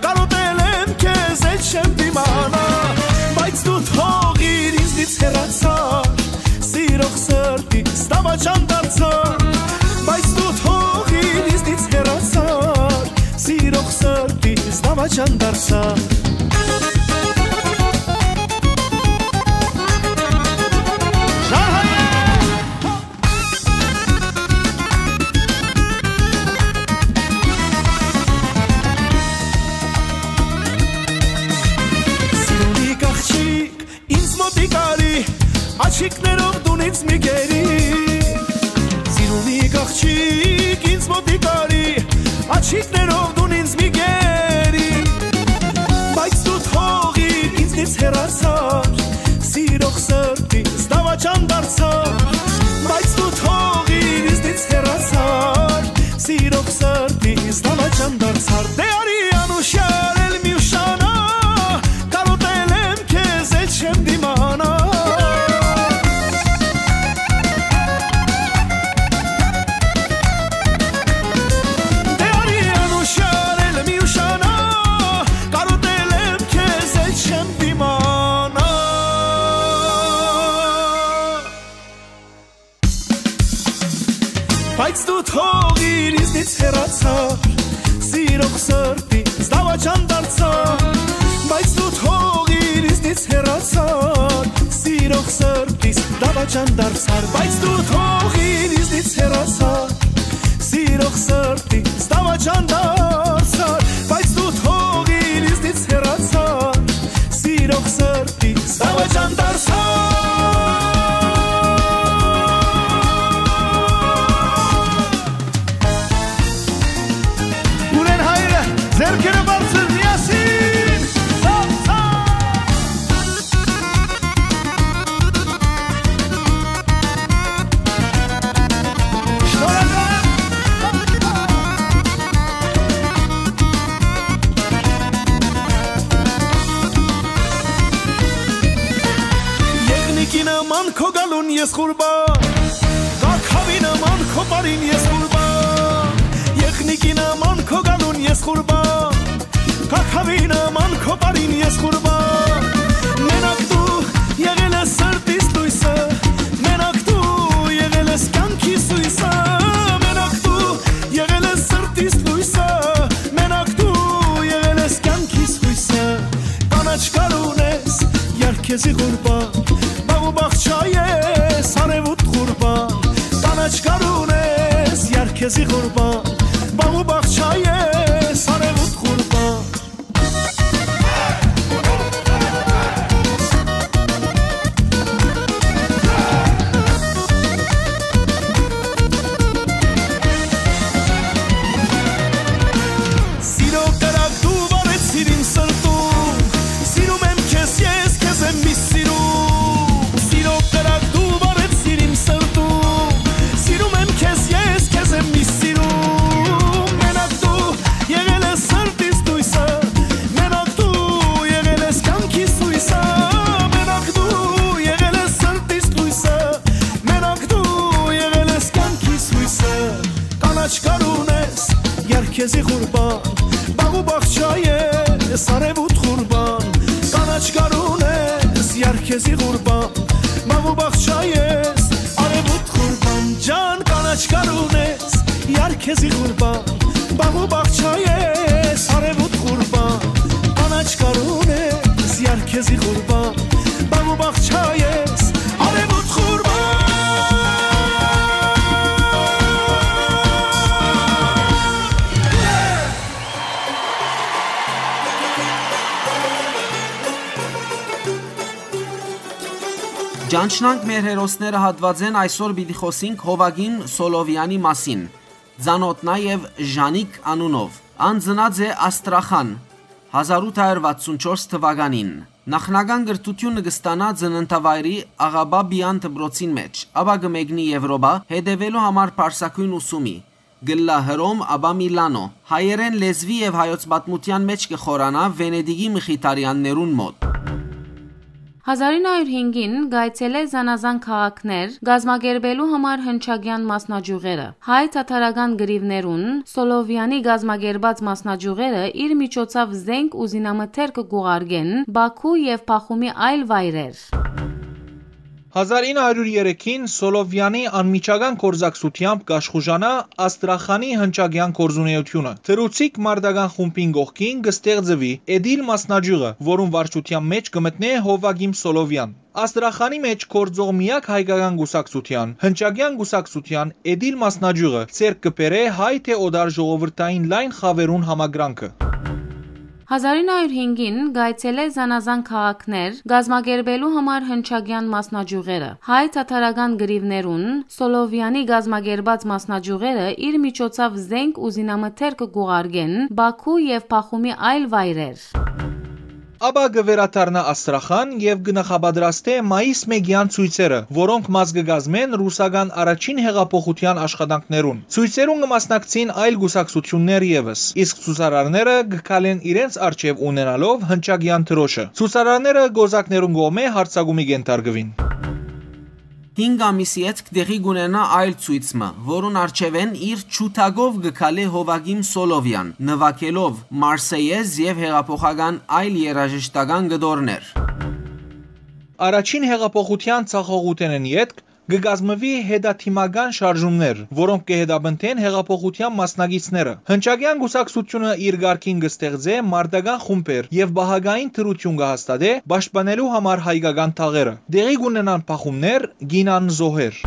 կարոտել եմ քեզ, էլ չեմ դիմանա, բայց դու թողիր, ինձնից հեռացար, սիրող սրտիս դավաճան դարձար, բայց դու թողիր, ինձնից հեռացար, սիրող սրտիս դավաճան դարձար։ Շարհայ է։ Սիրունի աղջիկ, ինձ մոտիկ արի, աչիկներով դուն ինձ մի կերի։ Սիրունի աղջիկ, ինձ մոտիկ արի, աչիկներով դուն ինձ մի կերի։ Բայց դու թողիր, ինձնից հեռացար, սիրող սրտիս դավաճան դարձար, բայց դու թողիր, ինձնից հեռացար, սիրող սրտիս դավաճան դարձար։ Դե արի անուշար, էլ մի ուշանա, կարոտել եմ քեզ, էլ չեմ դիմանա։ Դե արի անուշար, էլ մի ուշանա, կարոտել եմ քեզ, էլ չեմ դիմանա։ Բայց դու թողիր, ինձնից հեռացար, սիրող սրտիս դավաճան դարձար, բայց դու թողիր, ինձնից հեռացար, սիրող սրտիս դավաճան դարձար, բայց դու թողիր, ինձնից հեռացար, սիրող սրտիս դավաճան դարձար, բայց դու թողիր, ինձնից հեռացար, սիրող սրտիս դավաճան դարձար։ Ունեն հայրը, ձեռքերը բարձր միասին, սա, սա։ Շնորհակալ եմ։ Եղնիկի նման քո գալուն ես ղուրբան, կաքավի նման քո պարին ես ղուրբան, եղնիկի նման քո գալուն ես ղուրբան, կաքավի նման քո պարին ես ղուրբան։ Մենակ դու եղել ես սրտիս լույսը, մենակ դու եղել ես կյանքիս հույսը, մենակ դու եղել ես սրտիս լույսը, մենակ դու եղել ես կյանքիս հույսը։ Կանաչ գալուն ես, յարքեզի ղուրբան, բաղ ու բաղ չայ ես, արեւուտ ղուրբան, կանաչ գալուն ես, յարքեզի ղուրբան, բաղ ու բաղ չայ ես, արեւուտ ղուրբան։ Սիրո կրակ դու վառեցիր իմ սրտում, սիրում եմ քեզ ես, քեզ եմ միշտ սիրում։ ղուրբան, մաղ ու բաղ չայ ես, արեւոտ ղուրբան, ջան կանաչ կարուն ես, յար քեզի ղուրբան, մաղ ու բաղ չայ ես, արեւոտ ղուրբան, կանաչ կարուն ես, յար քեզի ղուրբան, մաղ ու բաղ չայ ես, արեւոտ ղուրբան։ Ճանչնանք մեր հերոսները հատուածէն, այսօր պիտի խօսինք Հովակիմ Սոլովեանի մասին, ծանօթ նաեւ Ժանիկ անունով։ Ան ծնած է Աստրախան, հազար ութ հարյուր վաթսուն չորս թուականին։ Նախնական կրթութիւնը կը ստանայ ծննդավայրի Աղաբաբեան դպրոցին մէջ, ապա կը մեկնի Եւրոպա, հետեւելու համար պարսագոյն ուսումի, կ'ըլլայ Հռոմ, ապա Միլանօ։ Հայերէն լեզուի եւ հայոց պատմութեան մէջ կը խորանայ Վենետիկի Մխիթարեաններուն մօտ։ Հազար ինը հարիւր հինգին կ'այցելէ զանազան քաղաքներ՝ կազմակերպելու համար հնչակեան մասնաճիւղերը։ Հայ թաթարական կռիւներուն Սոլովեանի կազմակերպած մասնաճիւղերը իր միջոցաւ զէնք ու զինամթերքը կ'ուղարկեն Պաքու եւ Պախումի այլ վայրեր։ Հազար ինը հարիւր երեքին Սոլովեանի անմիջական գործակցութեամբ կ'աշխուժանայ Աստրախանի հնչակեան գործունէութիւնը։ Թռուցիկ մարտական խումբին կողքին կը ստեղծուի Էդիլ մասնաճիւղը, որուն վարչութեան մէջ կը մտնէ Հովակիմ Սոլովեան։ Աստրախանի մէջ գործող միակ հայկական կուսակցութեան, հնչակեան կուսակցութեան Էդիլ մասնաճիւղը ձեռք կը բերէ հայ թէ օտար ժողովրդային լայն խաւերուն համակրանքը։ Հազար ինը հարիւր հինգին կ'այցելէ զանազան քաղաքներ՝ կազմակերպելու համար հնչակեան մասնաճիւղերը։ Հայ թաթարական կռիւներուն Սոլովեանի կազմակերպած մասնաճիւղերը իր միջոցաւ զէնք ու զինամթերքը կ'ուղարկեն Պաքու եւ Պախումի այլ վայրեր։ Ապա կը վերադառնայ Աստրախան եւ կը նախապատրաստէ մայիս մէկեան ցոյցերը, որոնք մաս կը կազմեն ռուսական առաջին յեղափոխութեան աշխատանքներուն։ Ցոյցերուն կը մասնակցին այլ կուսակցութիւններ եւս, իսկ ցուցարարները կը քալեն իրենց առջեւ ունենալով հնչակեան դրոշը։ Ցուցարարները կոզակներուն կողմէ յարձակումի կ'ենթարկուին։ Հինգ ամիս ետք տեղի կ'ունենայ այլ ցոյց մը, որուն առջեւէն իր ջութակով կը քալէ Հովակիմ Սոլովեան, նուագելով Մարսեյեզ եւ յեղափոխական այլ երաժշտական կտորներ։ Առաջին յեղափոխութեան ձախողութենէն ետք կը կազմուի հետադիմական շարժումներ, որոնք կը հետապնդեն յեղափոխութեան մասնակիցները։ Հնչակեան կուսակցութիւնը իր կարգին կը ստեղծէ մարտական խումբեր եւ պահակային դրութիւն կը հաստատէ՝ պաշտպանելու համար հայկական թաղերը։ Տեղի կ'ունենան բախումներ, կ'իյնան զոհեր։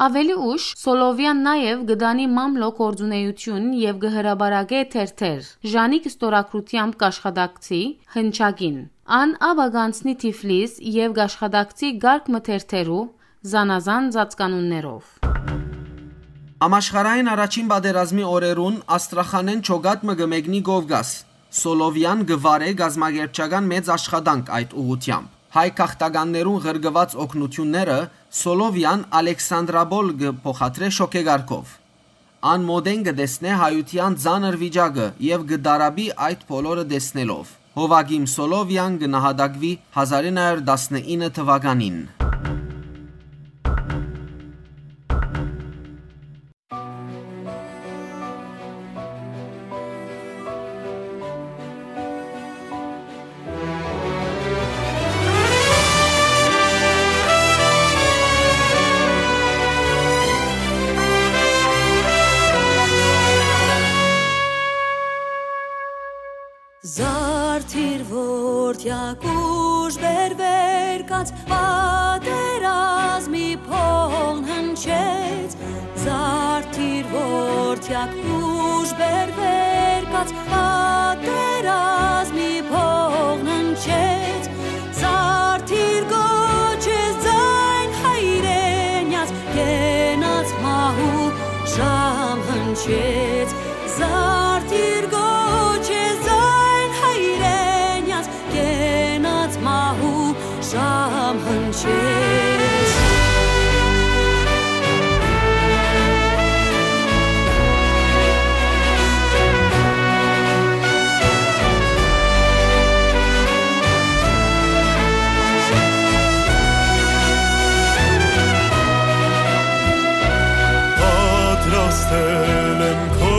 Աւելի ուշ Սոլովեան նաեւ կը տանի մամլոյ գործունէութիւն եւ կը հրապարակէ թերթեր։ Ժանիկ ստորագրութեամբ կ'աշխատակցի հնչակին։ Ան ապա կ'անցնի Թիֆլիս եւ կ'աշխատակցի կարգ մը թերթերու զանազան ծածկանուններով։ Համաշխարհային առաջին պատերազմի օրերուն Աստրախանէն ջոկատ մը կը մեկնի Կովկաս։ Սոլովեան կը վարէ կազմակերպչական մեծ աշխատանք այդ ուղղութեամբ։ Հայ գաղթականներուն ղրկուած օգնութիւնները Սոլովեան Ալեքսանդրապոլ կը փոխադրէ շոգեկարգով։ Ան մօտէն կը տեսնէ հայութեան ծանր վիճակը եւ կը տառապի այդ բոլորը տեսնելով։ Հովակիմ Սոլովեան կը նահատակուի հազար ինը հարիւր տասնինը թուականին։ Զարդիր որդեակ ուժ բերվեր կաց, պատերազմի փողն հնչեց, զարդիր որդեակ ուժ բերվեր կաց, պատերազմի փողն հնչեց, զարդիր կոչես ձայն հայրենյաց, կենաց մահու ժամ հնչեց, զարդիր կոչես ձայն հայրենյաց, կենաց մահու ժամ հնչեց։ Պատրաստել եմ քո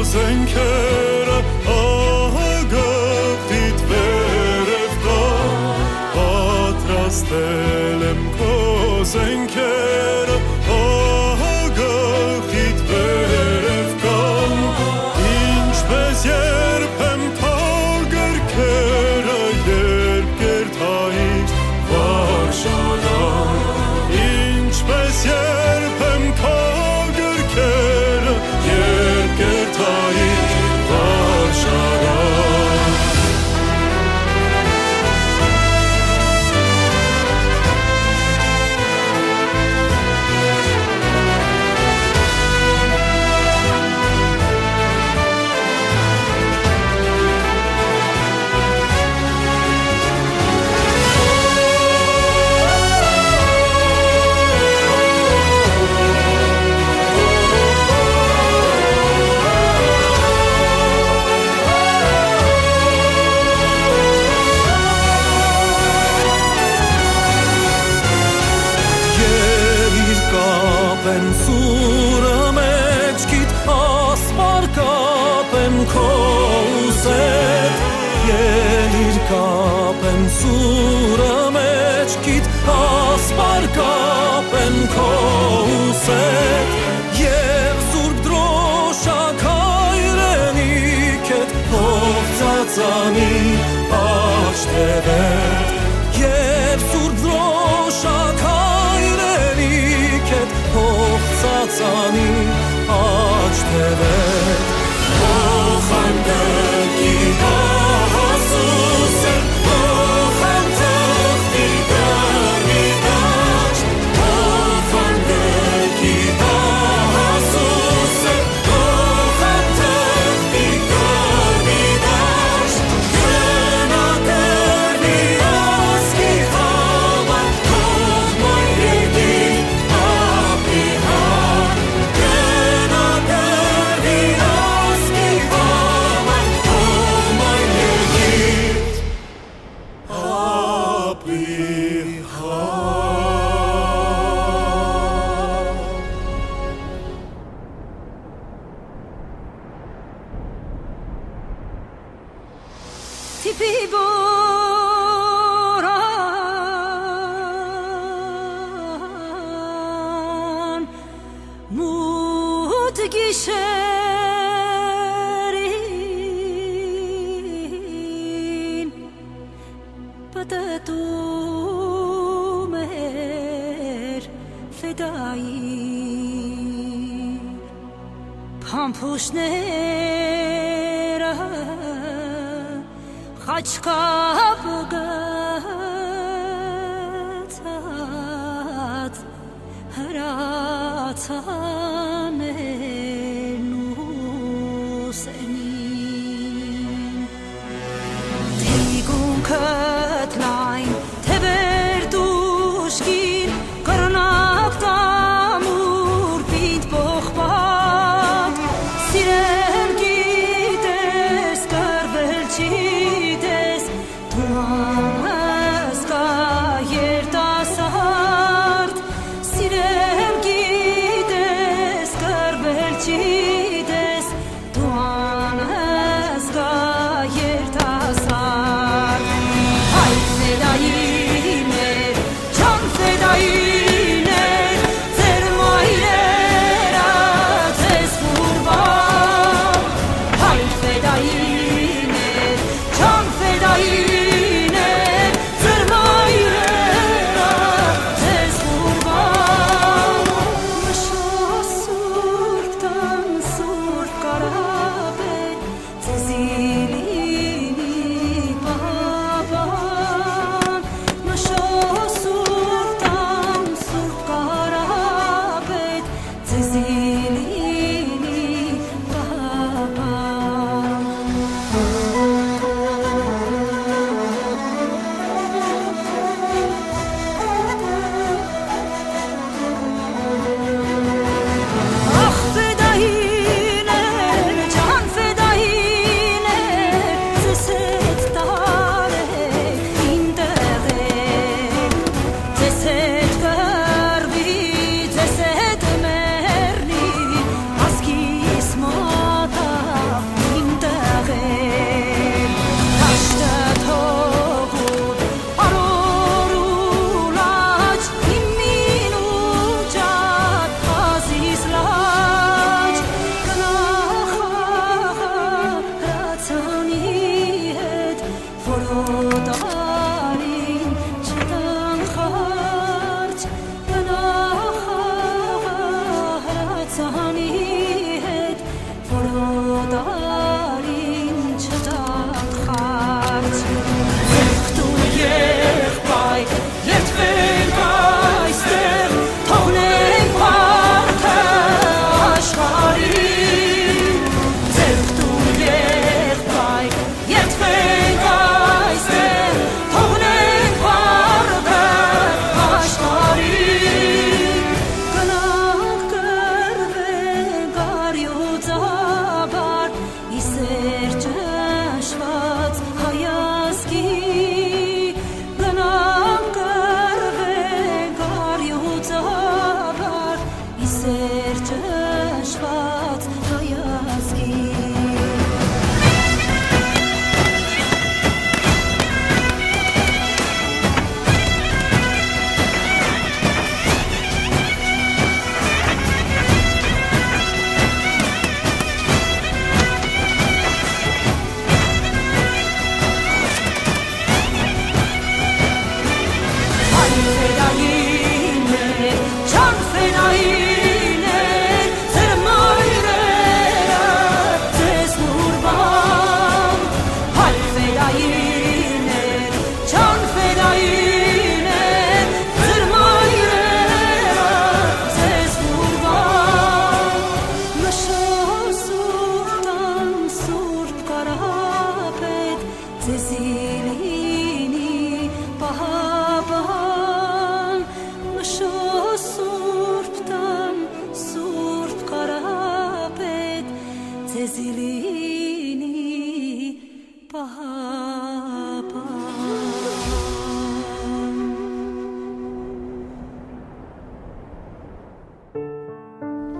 զենքերը, ահա գաղտնիդ վերև կա, պատրաստել Ստել եմ քո զենքերը, ահագաղիդ վերև կան, ինչպես երբեմ քո գրքերը, երբ կերթայիր վարժարան, ինչպես երբեմ քո գրքերը, երբ կերթայիր վարժարան։ Ելիր կապեմ սուրը մէջքիդ, ասպար կապեմ քո ուսեդ։ Ելիր կապեմ սուրը մէջքիդ, ասպար կապեմ քո ուսեդ։ Եւ Սուրբ Դրոշակ հայրենիքդ, հող ծածանի աջ թեւեդ, եւ Սուրբ Դրոշակ հայրենիքդ, հող ծածանի աջ թեւեդ։ Օխանտկի կահասուսը, օխանտախտի կառնի դաշտ, օխանտկի կահասուսը, Թիփի բորան մութ գիշերին պտտում էր ֆետայի փամփուշտները, խաչքապ գցած հրացան Էրնուսենին։ Թիկունքդ լայն, թեւերդ ուժգին, կռնակ տամուր պինդ պողպատ, սիրել գիտես, կռվել չիտես, դու անհսկա երիտասարդ, սիրել գիտես,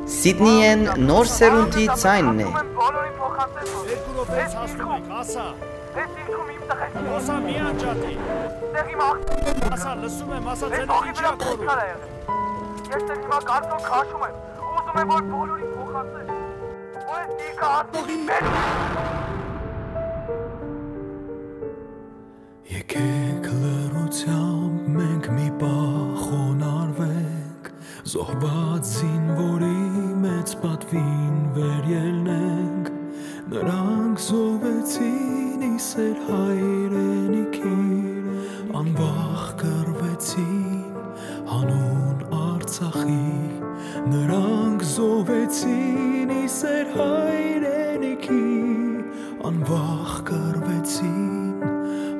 Սիդնիէն նոր սերունդի ձայնն է։ Երկու րոպեից հասնում ենք, ասա։ Ես իշխում իմ տղեկ։ Ասա, մի անջատի։ Դե հիմա ասա, լսում եմ, ասա, ձեր ինչի՞ ա կորում։ Ես դեռ հիմա կարծոք քաշում եմ։ Ուզում եմ, որ բոլորին փոխանցես։ Որ ես դիրքը ասողի մեջ։ Եկեք լռությամբ մենք մի պահ խոնարհվենք, զոհված զինուորի մեծ պատուին վերելնենք։ Նրանք զոհվեցին ի սեր հայրենիքի, անվախ կռվեցին հանուն Արցախի։ Նրանք զոհվեցին ի սեր հայրենիքի, անվախ կռվեցին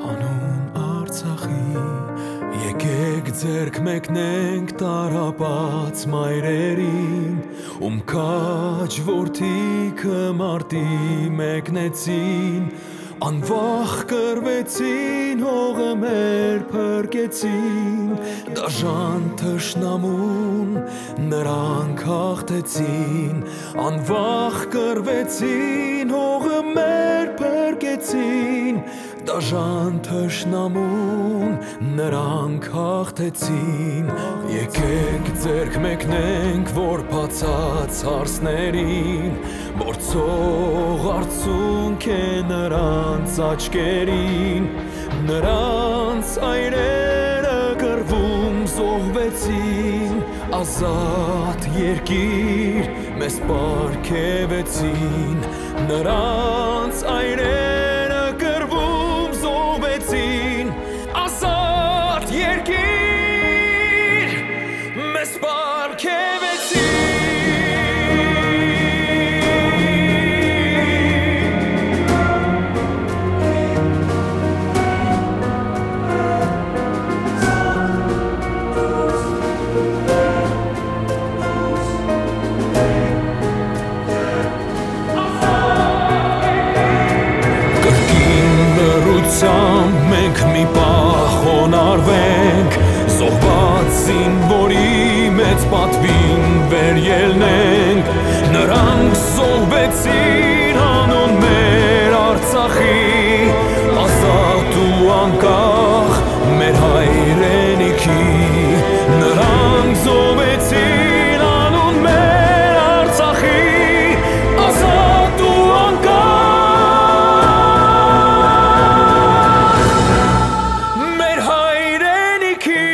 հանուն Արցախի։ Եկեք ձեռք մեկնենք տառապած մայրերին, ում քաջ որդիքը մարտի մեկնեցին, անվախ կռվեցին, հողը մեր փրկեցին, դաժան թշնամուն նրանք հաղթեցին, անվախ կռվեցին, հողը մեր փրկեցին, դաժան թշնամուն նրանք հաղթեցին։ Եկեք ձեռք մեկնենք, որ բացած հարցներին, որ ցող արցունք է նրանց աչքերին, նրանց այրերը կռվում զոհվեցին, ազատ երկիր մեզ պարգեւեցին, նրանց այրերը կռվում զոհվեցին, ազատ երկիր մեզ պարգեւեցին։ Կրկին լռությամբ մենք մի պահ խոնարհվենք, զոհված զինուորի մեծ պատուին վերելնենք։ Նրանք զոհվեցին հանուն մեր Արցախի, ազատ ու անկախ մեր հայրենիքի։ Նրանք զոհվեցին անուն մեր Արցախի, ազատ ու անկախ մեր հայրենիքի։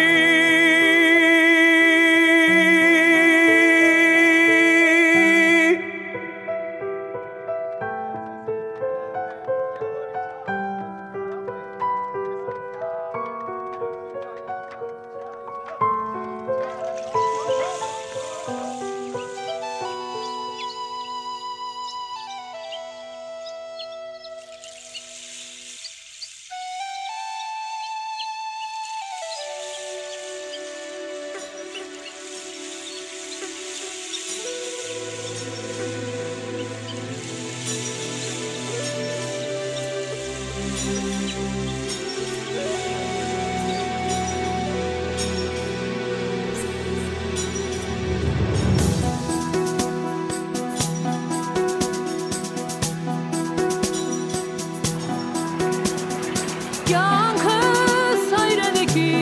Կեանքս հայրենիքի,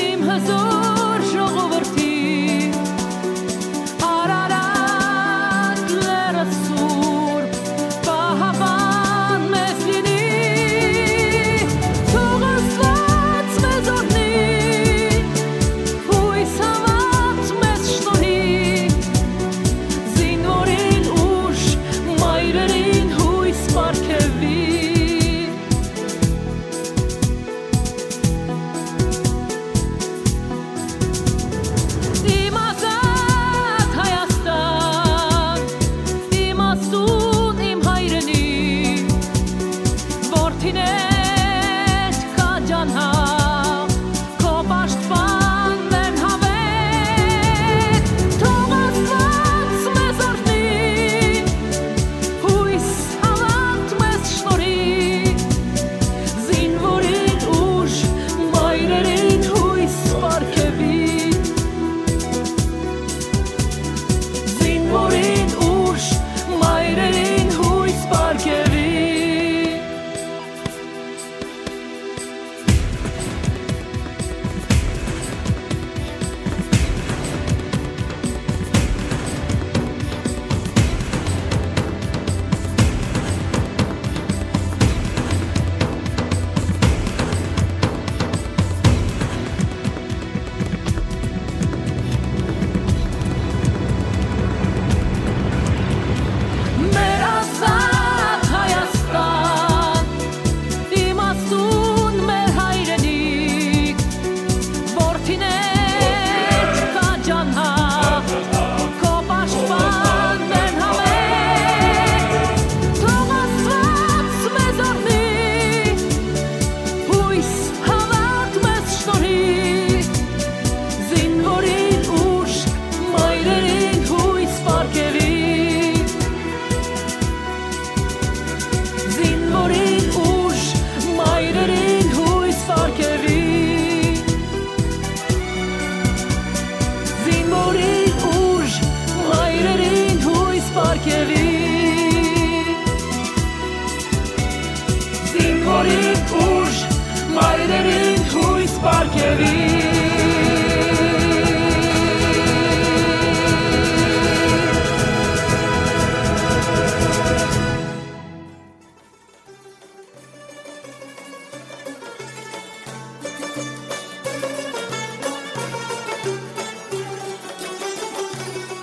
իմ հզոր ժողովրդի, Արարատ լեռը սուրբ, պահապան մեզ լինի, թող Աստուած մեզ օրհնի, յոյս հաւատ մեզ շնորհի, զինուորին ուժ, մայրերին յոյս պարգեւի։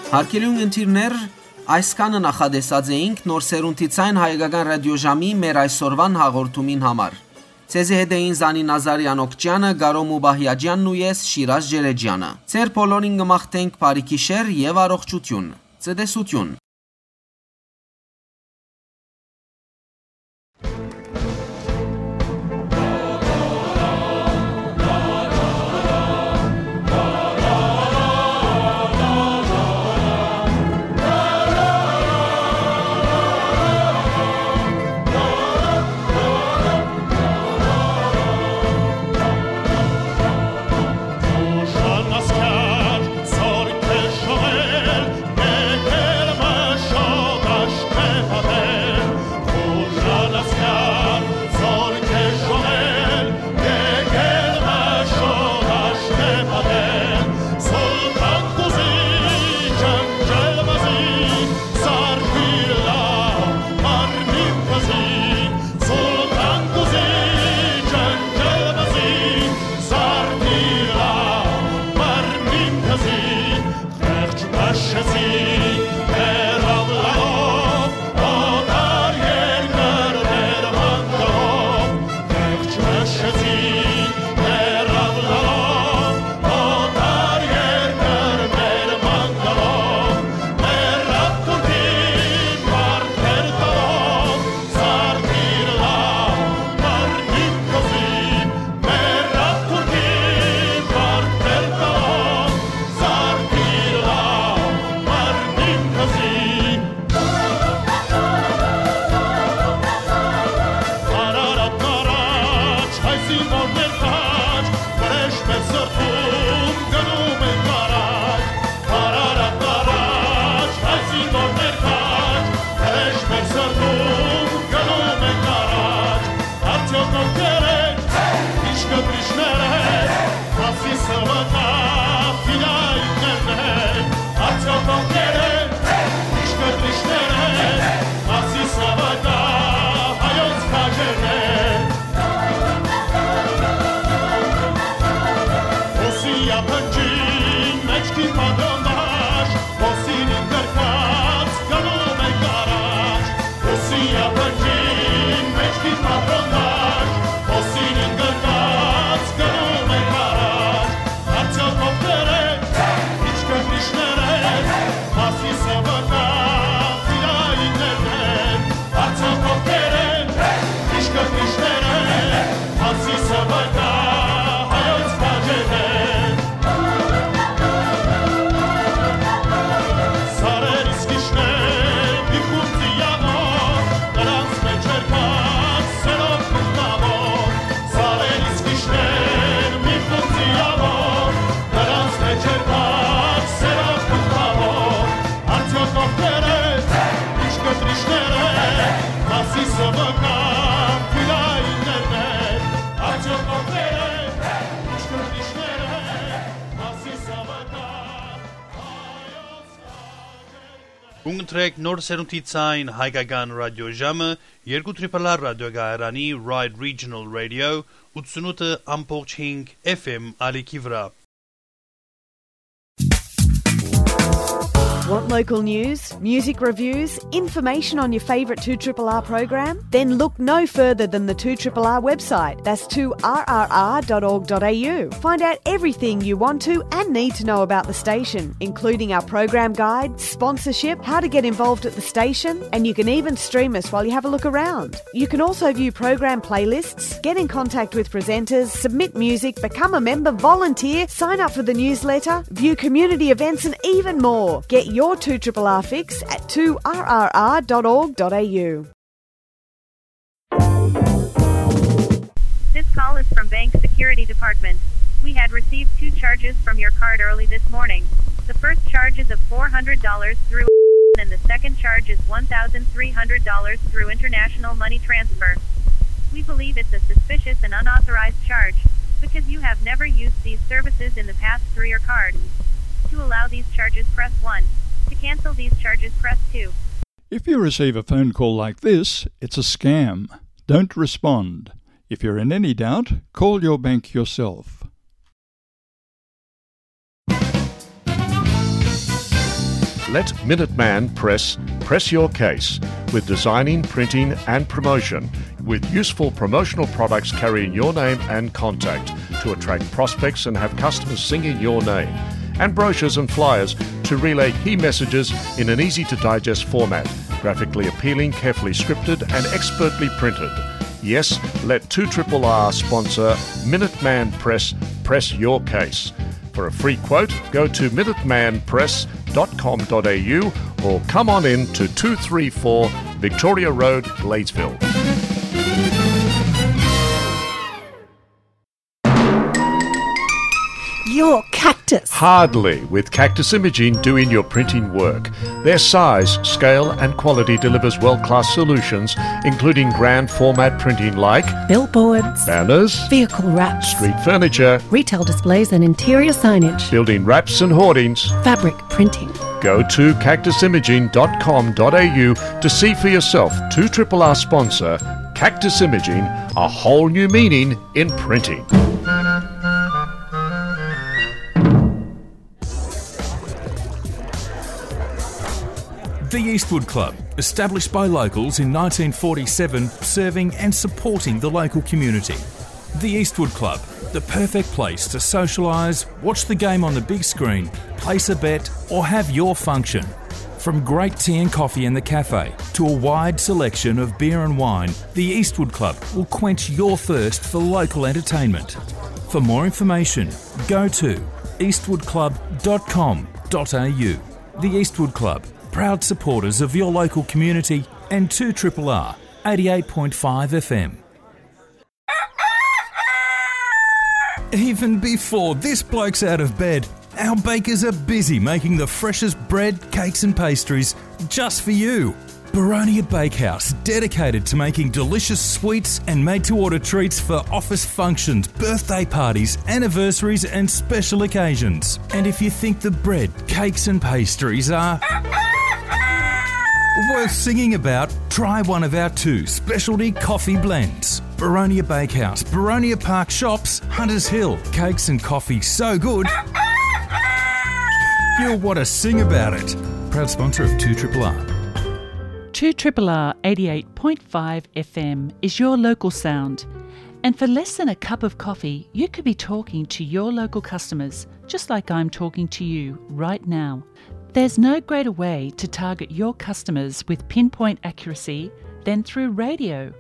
Հարգելի ունգընտիրներ, այսքանը նախատեսած էինք Նոր Սերունդի Ցայն հայկական ռադիոժամի մեր այսօրուան հաղորդումին համար։ Ձեզի հետ էին Զանի Նազարեան Օքճեանը, Կարո Մուբահիաջեանն ու ես, Շիրազ Ջերեջյանը։ Ձեր բոլորին կը մաղթենք բարի գիշեր եւ առողջություն։ Ցտեսություն։ Կընտրեք Նոր Սերունդի Ցայն հայկական ռադիոժամը երկու Triple R ռադիոկայարանի Ride Regional Radio ութսունութ ամբողջ հինգ F M ալիքի վրայ։ Want local news, music reviews, information on your favourite two triple R program? Then look no further than the two triple R website. That's two R R R dot org dot A U. Find out everything you want to and need to know about the station, including our program guide, sponsorship, how to get involved at the station, and you can even stream us while you have a look around. You can also view program playlists, get in contact with presenters, submit music, become a member, volunteer, sign up for the newsletter, view community events, and even more. Get your two triple R fix at two R R R dot org dot A U. This call is from Bank Security Department. We had received two charges from your card early this morning. The first charge is of four hundred dollars through and the second charge is one thousand three hundred dollars through international money transfer. We believe it's a suspicious and unauthorized charge because you have never used these services in the past through your card. To allow these charges, press one. To cancel these charges, press two. If you receive a phone call like this, it's a scam. Don't respond. If you're in any doubt, call your bank yourself. Let Minuteman Press press your case with designing, printing, and promotion, with useful promotional products carrying your name and contact to attract prospects and have customers singing your name, and brochures and flyers to relay key messages in an easy to digest format, graphically appealing, carefully scripted, and expertly printed. Yes, let two triple R sponsor Minuteman Press press your case. For a free quote, go to minuteman press dot com dot a u or come on in to two three four Victoria Road, Gladesville. Your Cactus. Hardly, with Cactus Imaging doing your printing work. Their size, scale, and quality delivers world-class solutions, including grand format printing like billboards, banners, vehicle wraps, street furniture, retail displays and interior signage, building wraps and hoardings, fabric printing. Go to cactus imaging dot com dot a u to see for yourself two triple R sponsor Cactus Imaging, a whole new meaning in printing. The Eastwood Club, established by locals in nineteen forty-seven, serving and supporting the local community. The Eastwood Club, the perfect place to socialise, watch the game on the big screen, place a bet, or have your function. From great tea and coffee in the cafe to a wide selection of beer and wine, the Eastwood Club will quench your thirst for local entertainment. For more information, go to eastwood club dot com dot a u. The Eastwood Club, proud supporters of your local community and two triple R, eighty-eight point five F M. Even before this bloke's out of bed, our bakers are busy making the freshest bread, cakes, and pastries just for you. Baronia Bakehouse, dedicated to making delicious sweets and made to order treats for office functions, birthday parties, anniversaries, and special occasions. And if you think the bread, cakes, and pastries are worth singing about, try one of our two specialty coffee blends. Baronia Bakehouse, Baronia Park Shops, Hunters Hill. Cakes and coffee so good, you'll want to sing about it. Proud sponsor of two triple R. two triple R eighty-eight point five F M is your local sound. And for less than a cup of coffee, you could be talking to your local customers, just like I'm talking to you right now. There's no greater way to target your customers with pinpoint accuracy than through radio.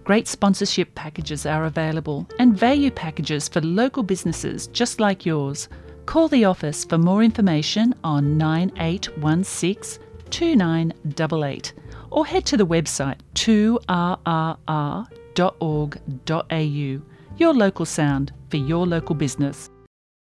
Great sponsorship packages are available and value packages for local businesses just like yours. Call the office for more information on nine eight one six two nine eight eight or head to the website two R R R dot org dot A U. Your local sound for your local business.